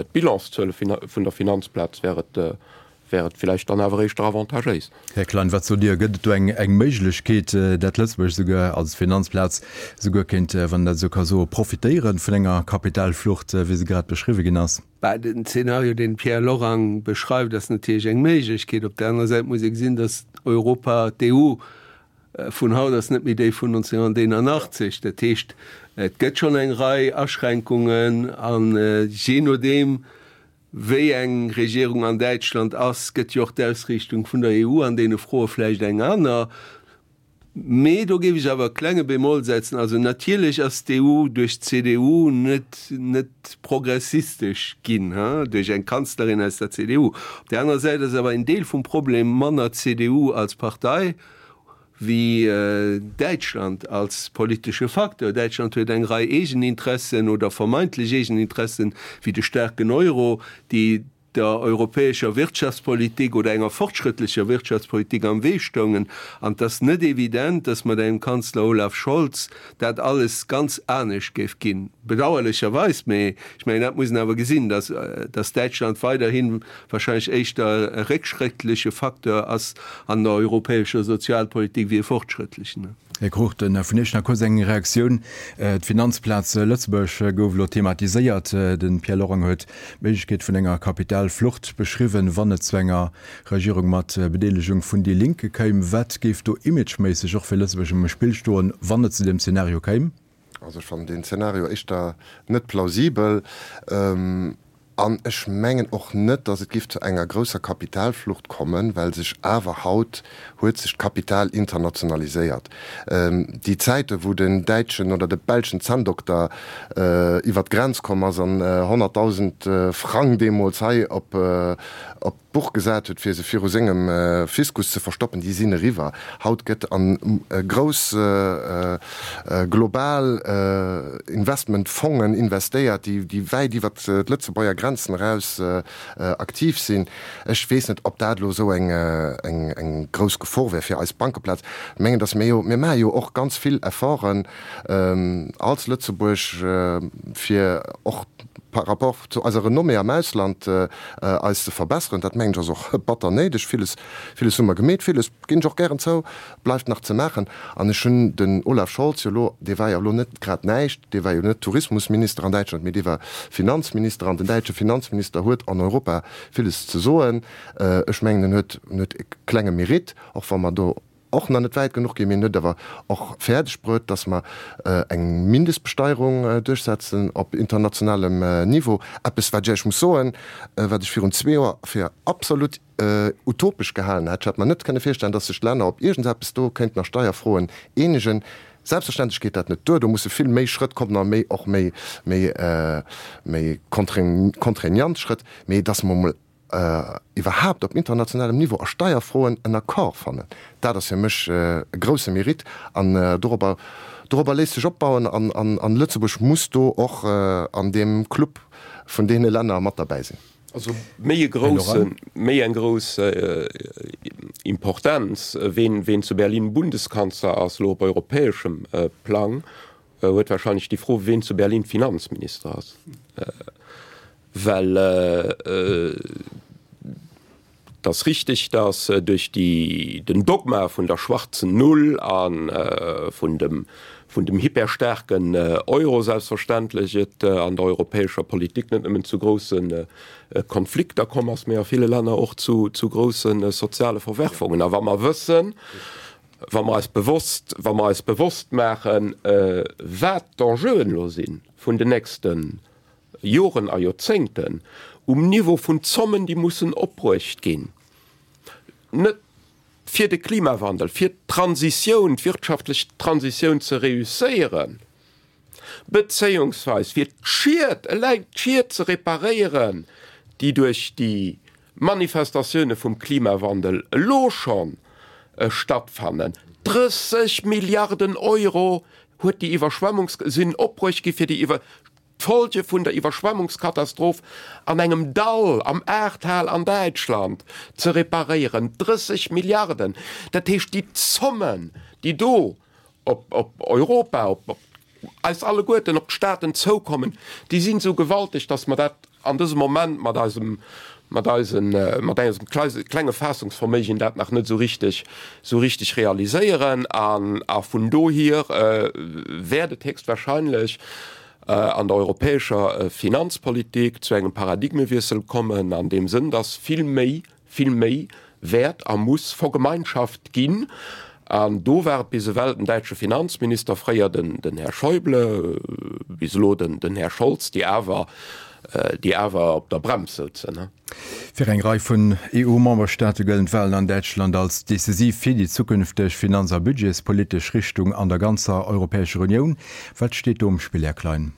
d'Bilanszuele vun der Finanzplaz wär et wär et villäicht dann awer éischter avantagéis. Här Klein, wat sot Dir? Gëtt et do eng eng Méiglechkeet, dat Lëtzebuerg souguer als Finanzplaz souguer kéint, wann een dat esou ka soen, profitéieren vun enger Kapitalflucht, wéi se grad beschriwwe ginn ass? Bah, den Zeenario, deen de Pierre Lorang beschreift, ass natierlech eng Méiglechkeet. Op der anerer Säit muss ee gesinn, datt Europa, d'EU vun haut ass net méi déi vun 1981. Dat heescht, et gëtt schonn eng Rei Aschränkungen an jee nodeem, Wéi eng Regierung an Däitschland ass, gëtt jo och d'Ausriichtung vun der EU an deene Froe vläicht eng aner. Mee do géif ech awer e klenge Bémol setzen. Also natierlech ass d'EU duerch d'CDU net net progressistesch ginn, duerch eng Kanzlerin aus der CDU. Op där anerer Säit ass awer en Deel vum Problem manner CDU als Partei wéi Däitschland als politesche Facteur. Däitschland huet eng Rei Eegeninteressen oder vermeintlech Eegeninteressen, wéi de staarken Euro, déi der europäescher Wirtschaftspolitik oder enger fortschrëttlecher Wirtschaftspolitik am Wee stoungen. An et ass net evident, datt mat engem Kanzler Olaf Scholz dat alles ganz anescht géif ginn. Bedauerlecherweis, mee ech mengen, dat muss een awer gesinn, datt datt Däitschland weiderhi wahrscheinlech éischter e réckschrëttleche Facteur ass an der europäescher Sozialpolitik wéi e fortschrëttlechen. Här Cruchten, vun Iech nach kuerz eng Reaktioun. D'Finanzplaz Lëtzebuerg gouf elo thematiséiert. De Pierre Lorang huet d'Méiglechkeet vun enger Kapitalflucht beschriwwen, wann et zu enger Regierung mat Bedeelegung vun déi Linke kéim. Wat géif do imageméisseg och fir Lëtzebuerg um Spill stoen, wann et zu deem Zeenario kéim? Also ech fannen deen Zeenario éischter net plausibel. An ech mengen och net, datt et géif zu enger grousser Kapitalflucht kommen, well sech awer haut huet sech d'Kapital internationaliséiert. Déi Zäite wou den däitschen oder de belschen Zänndokter iwwert d'Grenz komm ass an 100.000 Frang deemools hei op d'Buch gesat huet, fir se viru sengem Fiskus ze verstoppen, déi sinn eriwwer. Haut gëtt a grouss global Investmentfongen investéiert, déi wäit iwwer d'Lëtzebuerger Grenzen eraus aktiv sinn. Ech weess net, ob dat elo esou eng grouss Gefor wär fir eis Bankeplaz. Ech mengen, datt mir jo, mir maache jo och ganz vill Efforten als Lëtzebuerg, fir och par rapport zu eiser Renommée am Ausland eis ze verbesseren. Dat mengen ech ass och batter néideg. Villes, villes hu mer gemeet, villes, ginn ech och gären zou, bleift nach ze maachen. An ech hunn den Olaf Scholz jo elo, dee war jo elo net grad näischt, dee war jo net Tourismusminister an Däitschland, mee dee war Finanzminister an den däitsche Finanzminister huet an Europa villes ze soen. Ech mengen, en huet, en huet e klenge Mérite, och wa mer do och nach net wäit genuch ginn. Mir hunn et awer och fäerdeg bruet, dass mer eng Mindestbesteierung duerchsetzen op internationalem Niveau, eppes wat ech Iech muss soen, wat ech virun zwee Joer fir absolut utopesch gehalen hätt. Ech hätt mer net kënne virstellen, dass sech d'Länner op iergendseppes do kéinten a Steierfroen eenegen. Selbstverständlech geet dat net duer, do musse vill méi Schrëtt kommen a méi och méi, méi, méi contraignant Schrëtt, mee dass mer emol iwwerhaapt op internationalem Niveau a Steierfroen en Accord fannen, dat ass fir mech e grousse Mérite an dorobber, dorobber léisst sech opbauen an, an Lëtzebuerg muss do och an deem Club vun deene Länner mat derbäi sinn. Also méi e grousse, méi eng grouss Importenz, ween, ween zu Berlin Bundeskanzler ass, elo op europäeschem Plang, huet wahrscheinlech déi Fro, ween zu Berlin Finanzminister ass. Well et ass richtig, datt duerch déi, den Dogma vun der schwarzen Null a vun dem, vun dem hyperstaarken Euro selbstverständlech et an der europäescher Politik net nëmmen zu grousse Konflikter komm ass, mä a ville Länner och zu, zu grousse soziale Verwerfungen. A wa mer wëssen, wa mer eis bewosst, wa mer eis bewosst maachen, wat d'Enjeuen elo si vun den nächsten Joren a Joerzéngten um Niveau vun Zommen, déi mussen opbruecht ginn, net fir de Klimawandel, fir d'Transitioun, d'wirtschaftlech Transitioun ze reusséieren, bezéiungsweis fir d'Schied, eleng d'Schied ze reparéieren, déi duerch déi Manifestatioune vum Klimawandel elo scho stattfannen. 30 Milliarden Euro huet déi Iwwerschwemmungs-, sinn opbruecht gi fir déi Iwwer. D'Folge vun der Iwwerschwemmungskatastroph an engem Dall am Ahrtal an Däitschland ze reparéieren, 30 Milliarden, dat heescht déi Zommen, déi do op Europa, op eis alleguerten, op d'Staaten zoukommen, déi sinn esou gewalteg, datt mer dat an dësem Moment mat eisem, mat eisen, mat eisem klenge Faassungsverméigen dat nach net esou richteg, esou richteg realiséieren. An, a vun dohier wäert et héchstwahrscheinlech an der europäescher Finanzpolitik zu engem Paradigmewiessel kommen, an deem Sënn, dass vill méi vill méi wäert a muss vergemeinschaft ginn. An do war et bis ewell den däitsche Finanzminister, fréier den, den Här Schäuble, bis elo den, den Här Scholz, déi awer, déi awer op der Brems souzen. Fir eng Rei vun EU-Memberstaate gëllen d'Walen an Däitschland als decisiv fir déi zukünfteg finanz a budgetspolitesch Richtung an der ganzer Europäescher Unioun. Wat steet do um Spill, Här Klein?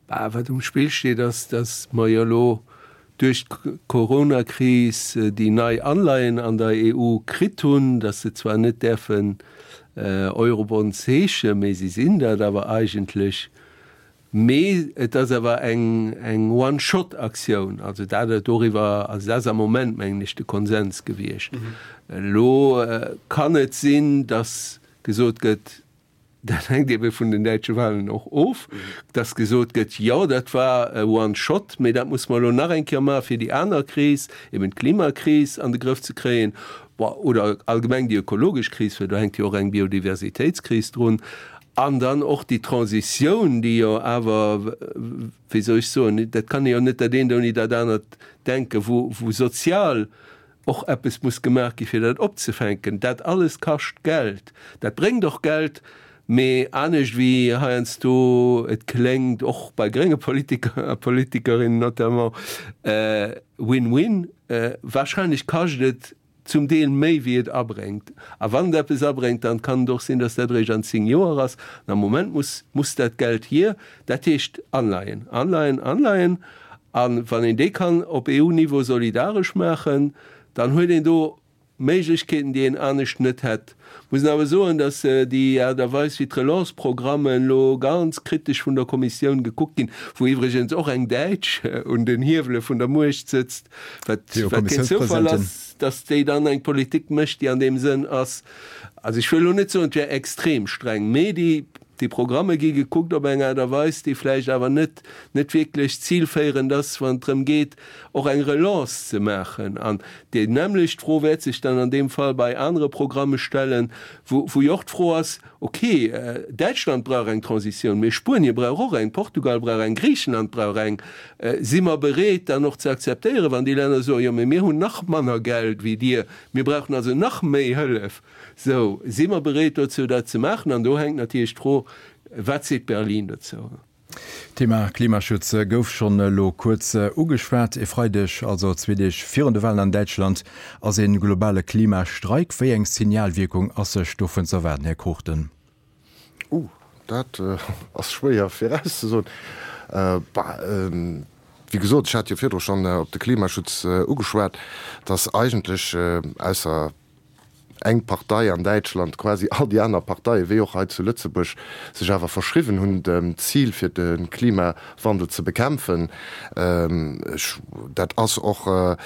Bah, wat um Spill steet, ass, datt mer jo elo duerch d'Coronakris déi nei Anleihen an der EU kritt hunn, datt se zwar net däerfen Eurobonds heeschen, mee si sinn dat awer eigentlech. Mee et ass awer eng eng One-Shot-Aktioun. Also dat doriwwer, also dat ass am Moment, mengen ech, de Konsens gewiescht. Elo kann et sinn, datt gesot gëtt, Dat hänkt ebe vun den däitsche Wahlen och of, dass gesot gëtt, jo dat war e One Shot, mee dat musse mer elo nach eng Kéier maache fir déi aner Kris, eben d'Klimakris an de Grëff ze kréien, bon, oder allgemeng déi ökologesch Kris, well do hänkt jo och eng Biodiversitéitskris drun, an dann och déi Transitioun, déi jo awer, wéi soll ech soen, dat kann ee jo net dat eent ouni dat anert denken, wou sozial och eppes muss gemaach gi fir dat opzefänken. Dat alles kascht Geld, dat bréngt och Geld, Mee anescht wéi heiansdo et kléngt, och bei grénge Politiker a Politikerinnen notamment, Win-win, wahrscheinlech kascht et zum Deel méi wéi et abréngt. A wann et eppes abréngt, dann kann et och sinn, datt dat eréischt an 10 Joer ass. An am Moment muss muss dat Geld hier. Dat heescht Anleihen, Anleihen, Anleihen. A wann een déi kann op EU-Niveau solidaresch maachen, dann huet een do Méiglechkeeten, déi een anescht net hätt. Muss een awer soen, datt déi Aart a Weis, wéi d'Relance-Programmen elo ganz kritesch vun der Kommissioun gekuckt ginn, wou iwwregens och eng Däitsch un den Hiewele vun der Muecht sëtzt, wat keen Zoufall ass, datt déi dann eng Politik mécht, déi an deem Sënn ass, also ech wëll elo net soen, et wär extrem streng, mee déi Déi Programme gi gekuckt op eng Aart a Weis, déi vläicht awer net net wierklech zilféierend ass, wann et drëm geet, och eng Relance ze maachen. An déi nämmlecht Fro wäert sech dann an deem Fall bei anere Programme stellen, wou wou jo och d'Fro ass, Okay, Däitschland brauch eng Transitioun, mee Spuenie brauch och eng, Portugal brauch eng, Griichenland brauch eng. Si mer bereet, dann och ze akzeptéieren, wann déi Länner soen, Jo, mee mir hunn nach manner Geld wéi dir, mir brauchen also nach méi Hëllef? Sou, si mer bereet dozou, dat ze maachen? An do hänkt natierlech d'Fro, Wat seet Berlin dozou? D'Thema Klimaschutz gouf schonn elo kuerz ugeschwat. E Freideg, also zwee Deeg virun de Walen an Däitschland, ass ee globale Klimastreik. Wéi eng Signalwierkung ass sech dovun z'erwaarden, Här Cruchten? Uh, dat ass schwéier virauszesoen. Bah, wéi gesot, ech hat jo virdru schonn op de Klimaschutz ugeschwat, dass eigentlech, ausser eng Partei an Däitschland, quasi all déi aner Parteien, wéi och hei zu Lëtzebuerg, sech awer verschriwwen hunn dem Zil fir de Klimawandel ze bekämpfen. Ech, dat ass och e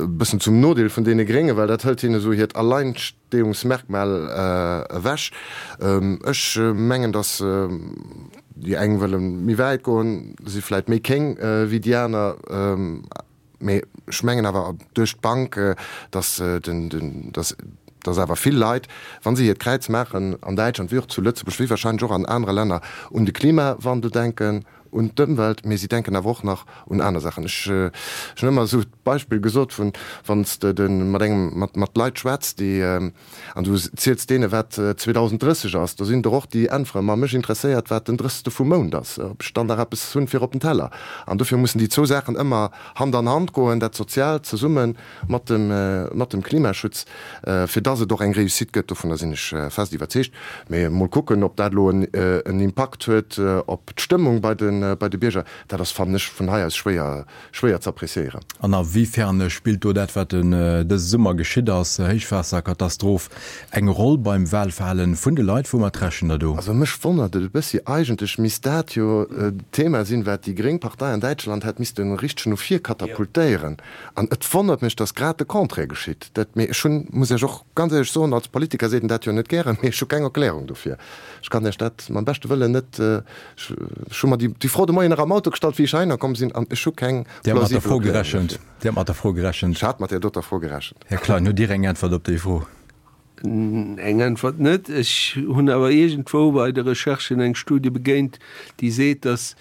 bëssen zum Nodeel vun deene Gréngen, well dat hëlt hinne esou hiert Alleinstehungsmerkmal ewech. Ech mengen, datt déi eng wëlle méi wäit goen, si vläit méi kéng wéi déi aner. Mee ech mengen awer duerch d'Bank, datt den, datt, datt awer vill Leit, wa se hiert Kräiz maachen an Däitschland wéi och zu Lëtzebuerg, wéi wahrscheinlech och an anere Länner, un de Klimawandel denken, un d'Ëmwelt, mee si denken awer och nach un aner Saachen. Ech hunn ëmmer esou d'Beispill gesot vun, wann s de mat engem, mat, mat Leit schwätz, déi, An du ziels deene wat 2030 ass, do sinn der och déi äntweren, ma mech interesséiert wat den drëssegste vum Mount ass, ob ech dann nach eppes hunn fir op den Teller. An dofir mussen déi zwou Saachen ëmmer Hand an Hand goen, dat Soziaalt zesumme mat dem, mat dem Klimaschutz, fir dass et och eng Réussite gëtt. Dovunner sinn ech fest iwwerzeegt. Mee mol kucken, ob dat elo en Impakt huet op d'Stëmmung bei de, bei de Bierger, dat ass, fannen ech, vun hei aus schwéier Schwéier ze appréciéieren. An a wéi fern spillt do dat, wat dëse Summer geschitt ass, Héichwaasserkatastroph, eng Roll beim Wahlverhalen vun de Leit? Woumat rechent Der do? Also mech wonnert et e bëssi, eigentlech misst dat jo d'Thema sinn, wat déi gréng Partei an Däitschland hätt misste richteg no vir katapultéieren. An et wonnert mech, datt grad de Contraire geschitt. Dat, mee ech hunn, muss Iech och ganz éierlech soen, als Politiker seet een dat jo net gären, mee ech hu keng Erklärung dofir. Ech kann Iech dat mam beschte Wëllen net Ech hu mer déi Fro de Moien nach am Auto gestallt, wéi ech heihinner komm sinn, an ech hu keng plausibel Erklärung dofir. Dir hat mat der Fro gerechent. Ech hat mat där doter Fro gerechent. Här Klein, hutt Dir eng Äntwert op déi Fro? Eng Äntwert net. Ech hunn awer iergendwou bei de Recherchen eng Studie begéint, déi seet, datt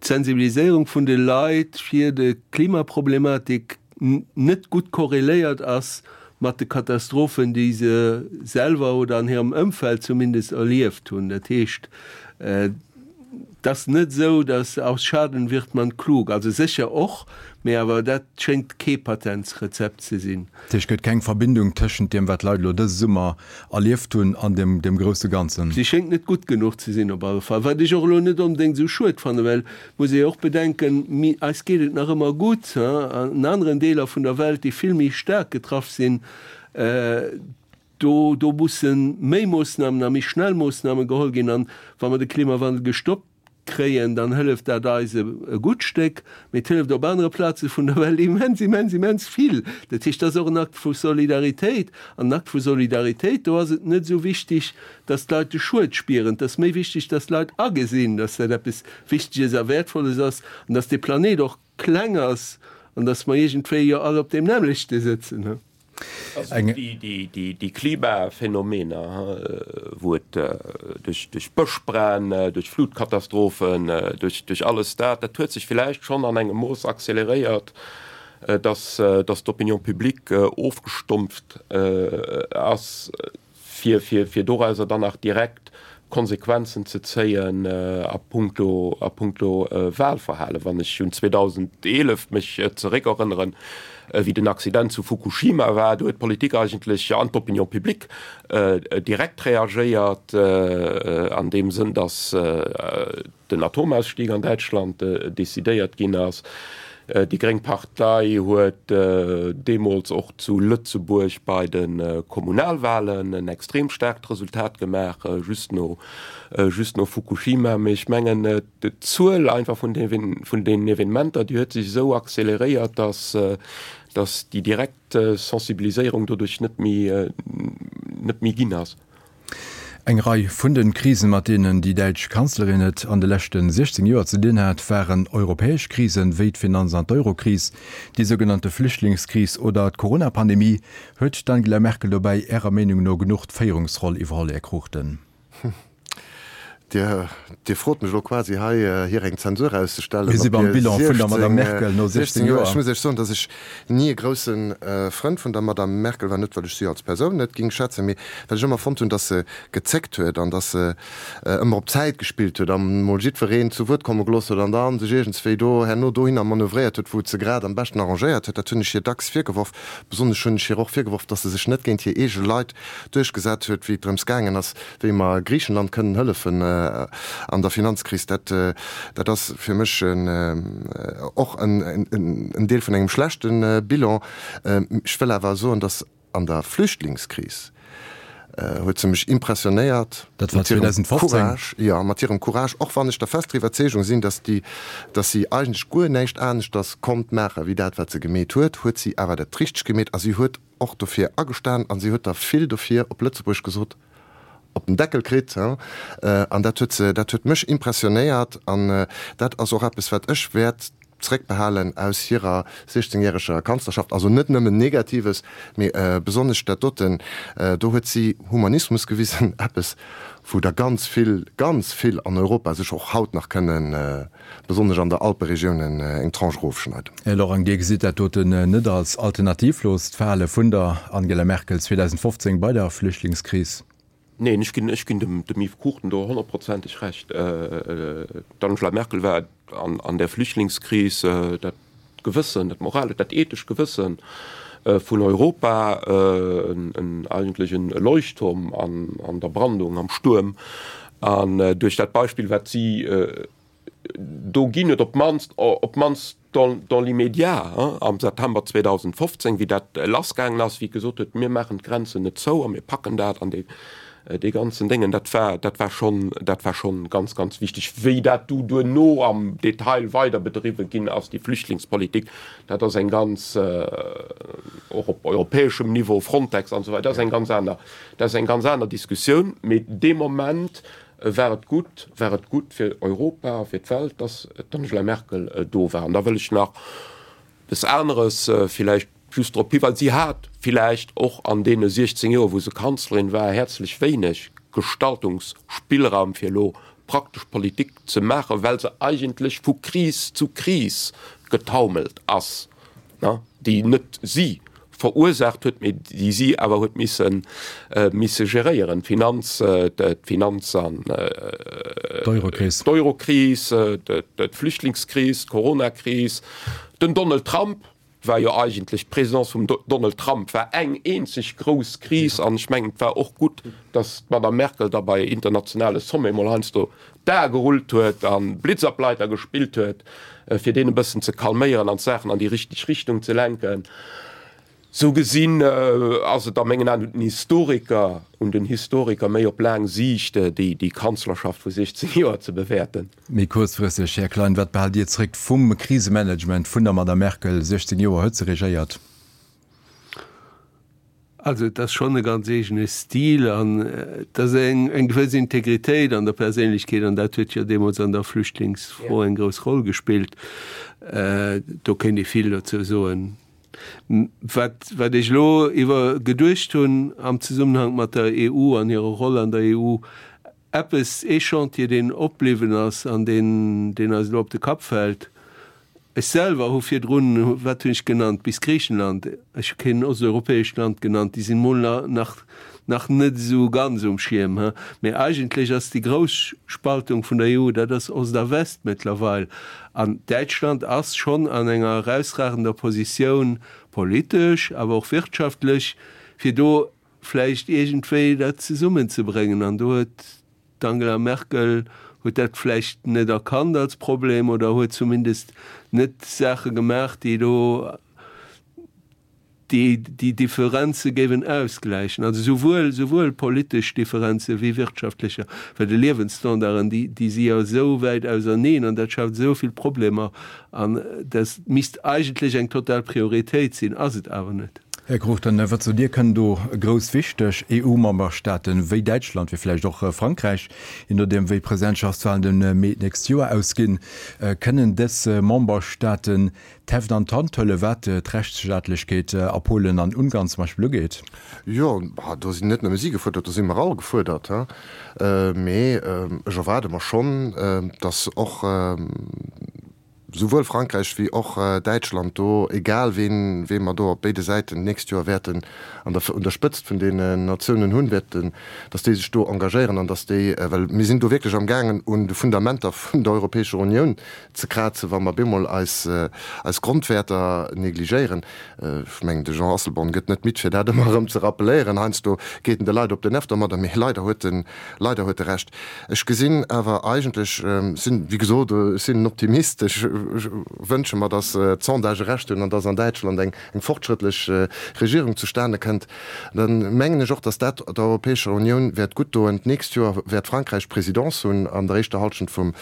d'Sensibiliséierung vun de Leit fir de Klimaproblematik net gutt korreléiert ass mat de Katastrophen, déi se selwer oder an hirem Ëmfeld zumindest erlieft hunn. Dat heescht, et ass net esou, dass aus Schaden wird man klug, also sécher och, mee awer dat schéngt kee Patentsrezept ze sinn. Dat heescht, et gëtt keng Verbindung tëschent deem, wat d'Leit elo dëse Summer erlieft hunn, an dem dem grousse Ganzen. Si schéngt net gutt genuch ze sinn op alle Fall, wat ech och elo net onbedéngt esou schued fannen, well muss ee jo och bedenken, mi eis geet et nach ëmmer gutt, an aneren Deeler vun der Welt, déi vill méi staark getraff sinn, do do musse méi Moossnamen a méi schnell Moossname geholl ginn. An wa mer de Klimawandel gestoppt kréien, dann hëlleft dat eis e gutt Stéck, mee et hëlleft op anere Plaze vun der Welt immens, immens, immens vill. Dat heescht, dat ass och en Akt vu Solidaritéit. An en Akt vu Solidaritéit, do ass et net esou wichtig, dass d'Leit de Schued spieren, et ass méi wichtig, dass d'Leit agesinn, dass dat eppes Wichteges a Wäertvolles ass an dass dee Planet och kleng ass an dass mer iergendwéi jo all op deem nämmlechte sëtzen. Also déi Klimaphänomener, wou et duerch Bëschbränn, duerch Flutkatastrophen, duerch alles dat, dat huet sech villäicht schonn an engem Mooss acceleréiert, datt d'Opinion publique ofgestumpft ass. fir, fir, fir dorauser dann nach direkt Konsequenzen ze zéien a puncto, a puncto Wahlverhalen. Wann ech un 2011 mech zeréckerënneren, wéi den Accident zu Fukushima war, do huet d'Politik eigentlech an d'Opinion publique direkt reagéiert an deem Sënn, datt den Atomausstieg an Däitschland decidéiert ginn ass. Déi gréng Partei huet deemools och zu Lëtzebuerg bei de Kommunalwahlen en extrem staarkt Resultat gemaach, just no just no Fukushima. Mee ech mengen, d'Zuel einfach vun vun deenen Evenementer, déi huet sech esou acceleréiert, datt datt déi direkt Sensibiliséierung doduerch net méi net méi ginn ass. Eng Rei vun de Krisen, mat deenen déi däitsch Kanzlerin et an de leschte 16 Joer ze dinn hat, waren europäesch Krisen, wéi d'Finanz an d'Eurokris, déi sougenannte Flüchtlingskris oder d'Corona-Pandemie. Huet d'Angela Merkel dobäi Ärer Meenung no genuch d'Féierungsroll iwwerholl, Här Cruchten? Dir, Dir frot mech elo quasi hei, hir eng Zensur auszestellen Mir si beim Bilan vun der Madame Merkel no 16 Joer. Ech muss Iech soen, datt ech ni e grousse Frënd vun der Madame Merkel war, net well ech si als Persoun net ging schätzen, mee well ech ëmmer fonnt hunn, datt se gezéckt huet an datt se ëmmer op Zäit gespillt huet an emol jiddwereen zu Wuert komme gelooss huet an da sech iergendswéi do herno dohinner manövréiert huet, wou et se grad am beschten arrangéiert huet. Dat hunn ech hir dacks virgeworf. Besonnesch hunn ech hir och virgeworf, datt se sech net géint hir eege Leit duerchgesat huet, wéi et drëms gaangen ass, wéi mer Griichenland kënnen hëllefen an der Finanzkris, dat, dat ass fir mech och en Deel vun engem schlechte Bilan. Ech wëll awer soen, datt an der Flüchtlingskris huet se mech impressionéiert Dat war 2015. Courage, jo, mat hirem Courage, och wann ech der fester Iwwerzeegung sinn, datt déi, datt si eigentlech guer näischt aneschters konnt maache wéi dat, wat se gemeet huet, huet si awer dat Richtegt gemeet a si huet och dofir agestan an si huet der vill dofir, op Lëtzebuergesch gesot, op den Deckel kritt. An dat huet se, dat huet mech impressionéiert an dat ass och eppes, wat ech wäert zréckbehalen aus hirer siechzengjäreger Kanzlerschaft. Also net nëmmen Negatives, mee besonnesch dat doten. Do huet si Humanismus gewisen, eppes, wou der ganz vill, ganz vill an Europa sech och haut nach kënnen besonnesch an der Alperegioun eng Tranche erofschneiden. Här Lorang, Dir gesitt dat doten net als alternativlost Verhale vun der Angela Merkel 2015 bei der Flüchtlingskris? Neen, ech ginn, ech ginn dem, dem Yves Cruchten do honnertprozenteg Recht. D'Angela Merkel war an, an där Flüchtlingskris dat Gewëssen, dat moralescht, dat ethescht Gewëssen vun Europa, en, eigentlech en Leuchtturm an, an der Brandung, am Stuerm. An duerch dat Beispill, wat si do ginn huet, op d'mannst, op d'mannst dans, dans l'immédiat, am September 2015, wéi dat lassgaangen ass, wéi gesot huet, mir maachen d'Grenzen net zou a mir packen dat an dee, dee ganzen Déngen, dat war, dat war schonn, dat war schonn ganz, ganz wichteg. Wéi dat du duerno am Detail weider bedriwwe ginn ass, déi Flüchtlingspolitik, dat ass eng ganz, och op europäeschem Niveau, Frontex an esou weider, dat ass eng ganz aner, dat ass eng ganz aner Diskussioun. Mee dee Moment war et gutt, war et gutt fir Europa a fir d'Welt, dass d'Angela Merkel do war. An da wëll ech nach eppes aneres villäicht just drop hiweisen, Si hat villäicht och an deene 16 Joer, wou se Kanzlerin war, häerzlech wéineg Gestaltungsspillraum, fir elo praktesch Politik ze maachen, well se eigentlech vu Kris zu Kris getaumelt ass. déi net si verursaacht huet, mee déi si awer huet misse misse geréieren, d'Finanz, d'Finanz an d'Eurokris, d'Eurokris, d'Flüchtlingskris, d'Coronakris, den Donald Trump war jo eigentlech, d'Presidence vum Donald Trump war eng eenzeg grouss Kris an ech mengen, et war och gutt, datt d'Madame Merkel da bei internationale Sommet mol heiansdo d'Ae gerullt huet a Blitzableiter gespillt huet, fir deen e bëssen ze calméieren an d'Saachen an déi richteg Richtung ze lenken. Sou gesinn ass et a mengen Aen un den Historiker, un den Historiker méi op laang Siicht déi Kanzlerschaft vu 16 Joer ze bewäerten. Méi kuerzfristeg, Här Klein, wat behaalt Dir zréck vum Krisemanagement vun der Madame Merkel? 16 Joer huet se regéiert. Also et ass schonn e ganz eegene Stil an et ass eng eng gewëss Integritéit an der Perséinlechkeet an dat huet jo deemools an der Flüchtlingsfro eng grouss Roll gespillt. Do kéint ee vill dozou soen. Wat wat ech elo iwwer geduecht hunn am Zesummenhank mat der EU an hirer Roll an der EU, eppes, ee Chantier deen opbliwwen ass an deen deen eis elo op de Kapp fält. Ech selwer hu virdrun, wat hunn ech genannt, bis Griichenland, ech hu keen osteuropäescht Land genannt, déi sinn mol nach nach net esou ganz um Schierm, he. Mee eigentlech ass déi grouss Spaltung vun der EU, dat ass Ost a West mëttlerweil. An Däitschland ass schonn an enger erausragender Positioun, politesch, awer och wirtschaftlech, fir do vläicht iergendwéi dat zesummenzebréngen. An do huet D'Angela Merkel huet dat vläicht net erkannt als Problem oder huet zumindest net Saache gemaach, déi do déi déi Differenze géiwen ausgläichen, also souwuel souwuel politesch Differenze wéi wirtschaftlecher, well de Liewensstandarden, déi déi si jo esou wäit auserneen an dat schaaft esou vill Problemer an dat misst eigentlech eng total Prioritéit sinn, ass et awer net. Här Cruchten, wat sot Dir, kënnen do grouss wichteg EU-Memberstaaten wéi Däitschland, wéi vläicht och Frankräich, je nodeem wéi d'Presidentschaftswahlen de Mee d'nächst Joer ausginn, kënnen dës Memberstaaten d'Heft an d'Hand huelen, wat d'Rechtsstaatlechkeet a Polen an Ungarn zum Beispill ugeet? Jo, do sinn net nëmme si gefuerdert, do si mer all gefuerdert. Mee ech erwaarde mer schonn, datt och, souwuel Frankräich wéi och Däitschland do, egal ween wee mer do op béide Säiten d'nächst Joer wäerten an der un der Spëtzt vun deenen Natiounen hunn, wäerten, datt déi sech do engagéieren an datt déi, well mir sinn do wierklech amgaangen un de Fundamenter vun der Europäescher Unioun ze krazen, wa mer bemol eis eis Grondwäerter negligéieren. Ech mengen, de Jean Asselborn gëtt net midd fir dat ëmmer erëm ze rappeléieren. Heiansdo geet en de Leit op den Nerv domadder, mee leider huet en Leider huet e Recht. Ech gesinn awer eigentlech, sinn, wéi gesot, ech sinn en Optimist, ech wënsche mer, datt d'Sondagë Recht hunn an datt an Däitschland eng fortschrëttlech Regierung zustane kënnt. Da mengen ech och, datt dat der Europäescher Unioun wäert gutt doen. D'nächst Joer wäert Frankräich d'Presidence hunn an der éischter Halschent vum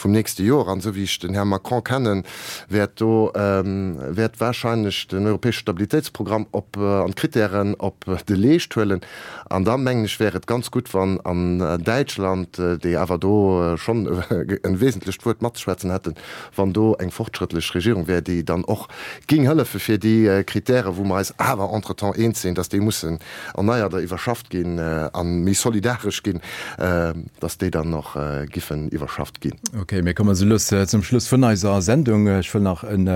nächste Joer. An esou wéi ech den Här Macron kennen, wäert do, wäert wahrscheinlech den europäesche Stabilitéitsprogramm op an d'Kritären op de Leescht huelen. An da mengen ech, wär et ganz gutt, wann an Däitschland, déi awer do schonn e wesentlecht Wuert matzeschwätzen hätten, wann do eng fortschrëttlech Regierung wär, déi dann och géing hëllefe fir déi Kritäre, wou mer eis awer entretemps eens sinn, dass déi mussen erneiert a iwwerschafft ginn a méi solidaresch ginn, dass déi dann och giffen iwwerschafft ginn. Okay, mir kommen esou lues zum Schluss vun eiser Sendung. Ech wëll nach en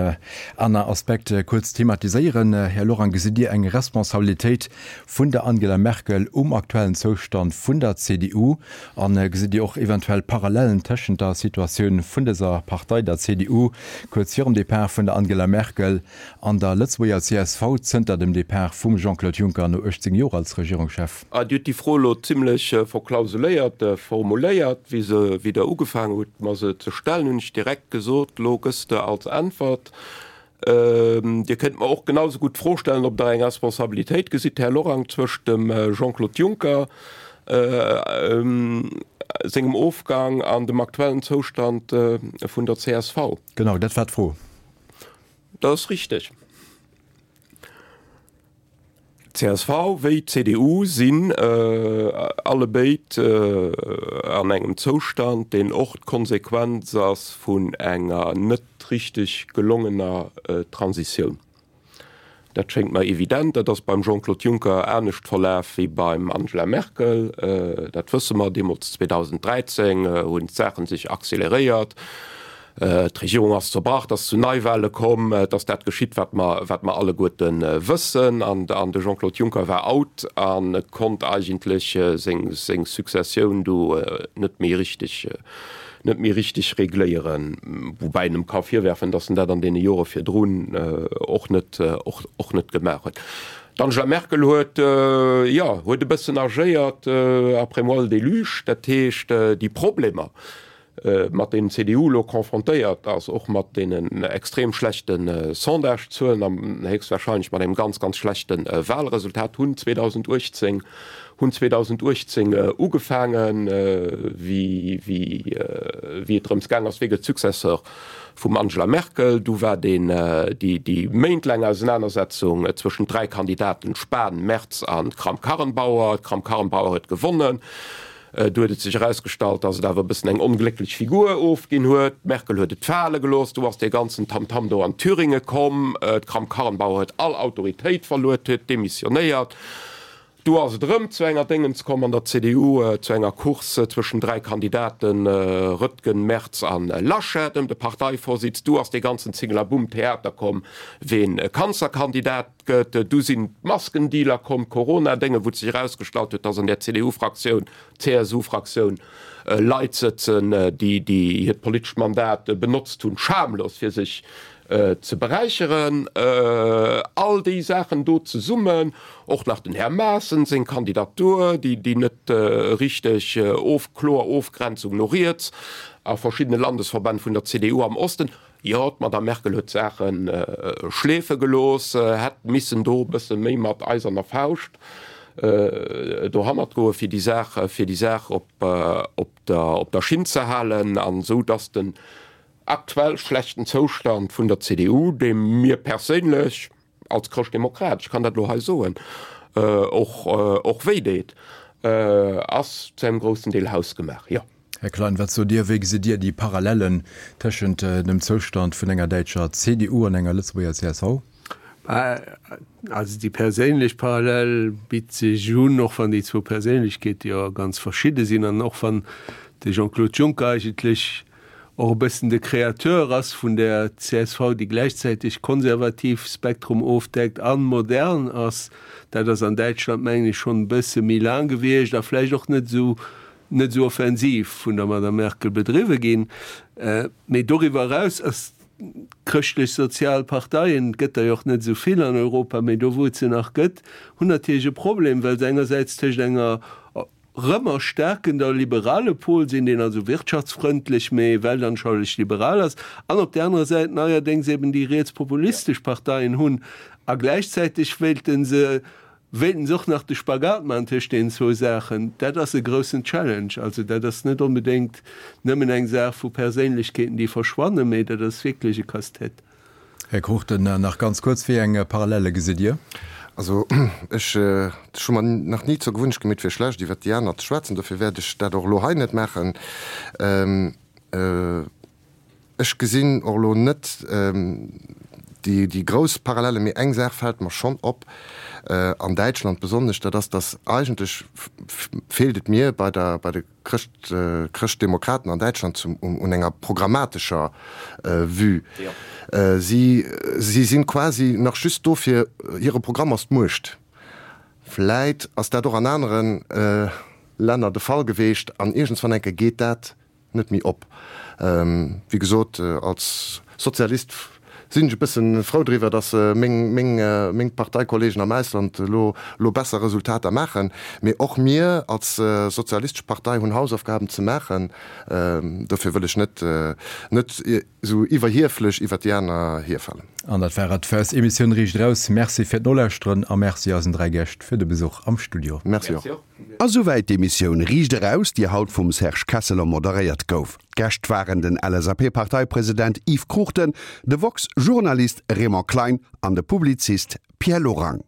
aner Aspekt kuerz thematiséieren. Här Lorang, gesitt Dir eng Responsabilitéit vun der Angela Merkel um aktuellen Zoustand vun der CDU? A gesitt Dir och eventuell Parallellen tëschent der Situatioun vun dëser Partei, der CDU, kuerz virum Depart vun der Angela Merkel, an der Lëtzebuerger csv zënter dem Depart vum Jean-Claude Juncker no 18 Joer als Regierungschef? Dir hutt déi Fro elo zimlech verklausuléiert formuléiert. Wéi se, wéi Der ugefaangen hutt, mer se ze stellen, hunn ech direkt gesot, Elo gëss de als Äntwert Dir kënnt mer och genau esou gutt d'Fro stellen, ob Der eng Responsabilitéit gesitt, Här Lorang, zwëscht dem Jean-Claude Juncker sengem Ofgang an dem aktuellen Zoustand vun der csv. Genau, dat war d'Fro. Dat ass richteg. Csv wéi CDU sinn allebéid an engem Zoustand, deen och d'Konsequenz ass vun enger net richteg gelongener Transitioun. Dat schéngt mer evident. Dat ass beim Jean-Claude Juncker anescht verlaf wéi beim Angela Merkel. Dat wësse mer. Deemools 2013 hunn d'Saache sech acceleréiert. D'Regierung ass zerbrach, et ass zu Neiwahle komm, et ass dat geschitt, wat mer, wat mer alleguerte wëssen. An de Jean-Claude Juncker war out a konnt eigentlech seng, seng Successioun do net méi richteg, net méi richteg regléieren. Woubäi een em ka virwerfen, datt en dat an deene Jore virdrun och net, och, och net gemaach huet. D'Angela Merkel huet, jo, huet e bëssen agéiert après moi le déluge, dat heescht déi Problemer, mat deenen d'CDU elo confrontéiert ass, och mat deenen extrem schlechte Sondagezuelen an héchstwahrscheinlech mat engem ganz, ganz schlechte Wahlresultat, hunn 2018, hunn 2018 ugefaangen, wéi, wéi, wéi et drëms gaang ass, wie gëtt Successeur vum Angela Merkel. Du war deen, déi, déi méintlaang Ausenanersetzung zwëschent 3 Kandidaten, Spahn, Merz an Kramp-Karrenbauer. D'Kramp-Karrenbauer huet gewonnen. Du huet et sech erausgestallt, datt et awer e bëssen eng onglécklech Figur ofginn huet. D'Merkel huet et fale gelooss. Du ass dee ganzen Tamtam do an Thüringe komm. D'Kramp-Karrenbauer huet all Autoritéit verluer, huet demissionéiert. Du ass et erëm zu enger Déngens komm an der CDU, zu enger Course zwëschen 3 Kandidaten, Röttgen, Merz a Laschet, ëm de Parteivorsitz. Du ass dee ganzen Zingelabumm-Theater komm, ween Kanzlerkandidat gëtt. Du sinn d'Maskendealer komm, d'Corona-Dénge, wou et sech erausgestallt huet, dass an där CDU-Fraktioun, CSU-Fraktioun Leit sëtzen, déi hiert politescht Mandat benotzt hunn, schamlos, fir sech ze beräicheren. All déi Saachen do zesummen, och nach den Här Maaßen seng Kandidatur, déi net richteg of, kloer Ofgrenzung no riets a verschiddene Landesverbänn vun der CDU am Osten. Jo, d'Madame Merkel huet d'Saache schleefe gelooss, hätt missen do e bësse méi mat eiserner Fauscht dohannert goen, fir déi Saach, fir déi Saach op, op der, op der Schinn ze halen, an esou dass den aktuell schlechten Zoustand vun der CDU, dee mir perséinlech als Chrëschtdemokrat, ech kann dat elo hei soen, och, och wéi deet, ass zu engem groussen Deel hausgemaach, jo. Här Klein, wat sot Dir, wéi gesitt Dir déi Parallellen tëschent dem Zoustand vun enger däitscher CDU an enger Lëtzebuerger csv? Also déi perséinlech Parallel bitt sech un, och wann déi zwou Perséinlechkeete jo ganz verschidde sinn an och wann de Jean-Claude Juncker eigentlech och e bëssen de Créateur ass vun der csv, déi gläichzäiteg konservativ Spektrum ofdeckt a modern ass. Dat ass an Däitschland, mengen ech, schonn e bësse méi laang gewiescht a vläicht och net esou net esou offensiv vun der Madame Merkel bedriwwe ginn. Mee doriwwer eraus ass d'chrëschtlech-sozial Parteien, et gëtt der jo och net esou vill an Europa, mee do wou et se nach gëtt, hunn natierlech e Problem, well se engersäits tëscht enger rëm erstaarkender liberale Pol sinn, deen also wirtschaftsfrëndlech, mee weltanschaulich liberal ass, an op där anerer Säit neierdéngs eben déi rietspopulistesch Parteien hunn. A gläichzäiteg wéilte se Wéilten se och nach de Spagat maachen tëscht deenen zwou Saachen? Dat ass e groussen Challenge. Also dat ass net onbedéngt nëmmen eng Saach vu Perséinlechkeeten, déi verschwannen, mee dat ass wierklech e Casse-tête. Här Cruchten, nach ganz kuerz, Wéi eng Parallele gesitt Dir? Also ech hu mer nach ni zur Gewunnecht gemeet, fir schlecht iwwert déi aner ze schwätzen. Dofir wäert ech dat och elo hei net maachen. Ech gesinn och elo net déi grouss Parallellen, mee eng Saach fält mer schonn op, an Däitschland besonnesch, dat ass, datt eigentlech feelt et mir bei der, bei de Chrëscht, Chrëschtdemokraten an Däitschland zum, un enger programmatescher Vue. Si, si sinn quasi nach just do fir, hire Programm ass d'Muecht. Vläit ass dat och an anere Länner de Fall geweecht an iergendswann enke geet dat net méi op. Wéi gesot, als Sozialist sinn ech e bësse frou driwwer, datt meng Parteikollegen am Ausland elo besser Resultater maachen. Mee och mir als Sozialistesch Partei hunn Hausaufgaben ze maachen. Dofir wëll ech net net esou iwwerhieflech iwwer déi aner hierfalen. An dat war et fir eis Emissioun Riicht Eraus. Merci fir d'Nolauschteren a Merci eisen 3 Gäscht fir de Besuch am Studio. Merci och. A souwäit d'Emissioun Riicht Eraus, déi haut vum Serge Kesseler moderéiert gouf. D'Gäscht waren den LSAP-Parteipresident Yves Cruchten, de woxx-Journalist Raymond Klein an de Publizist Pierre Lorang.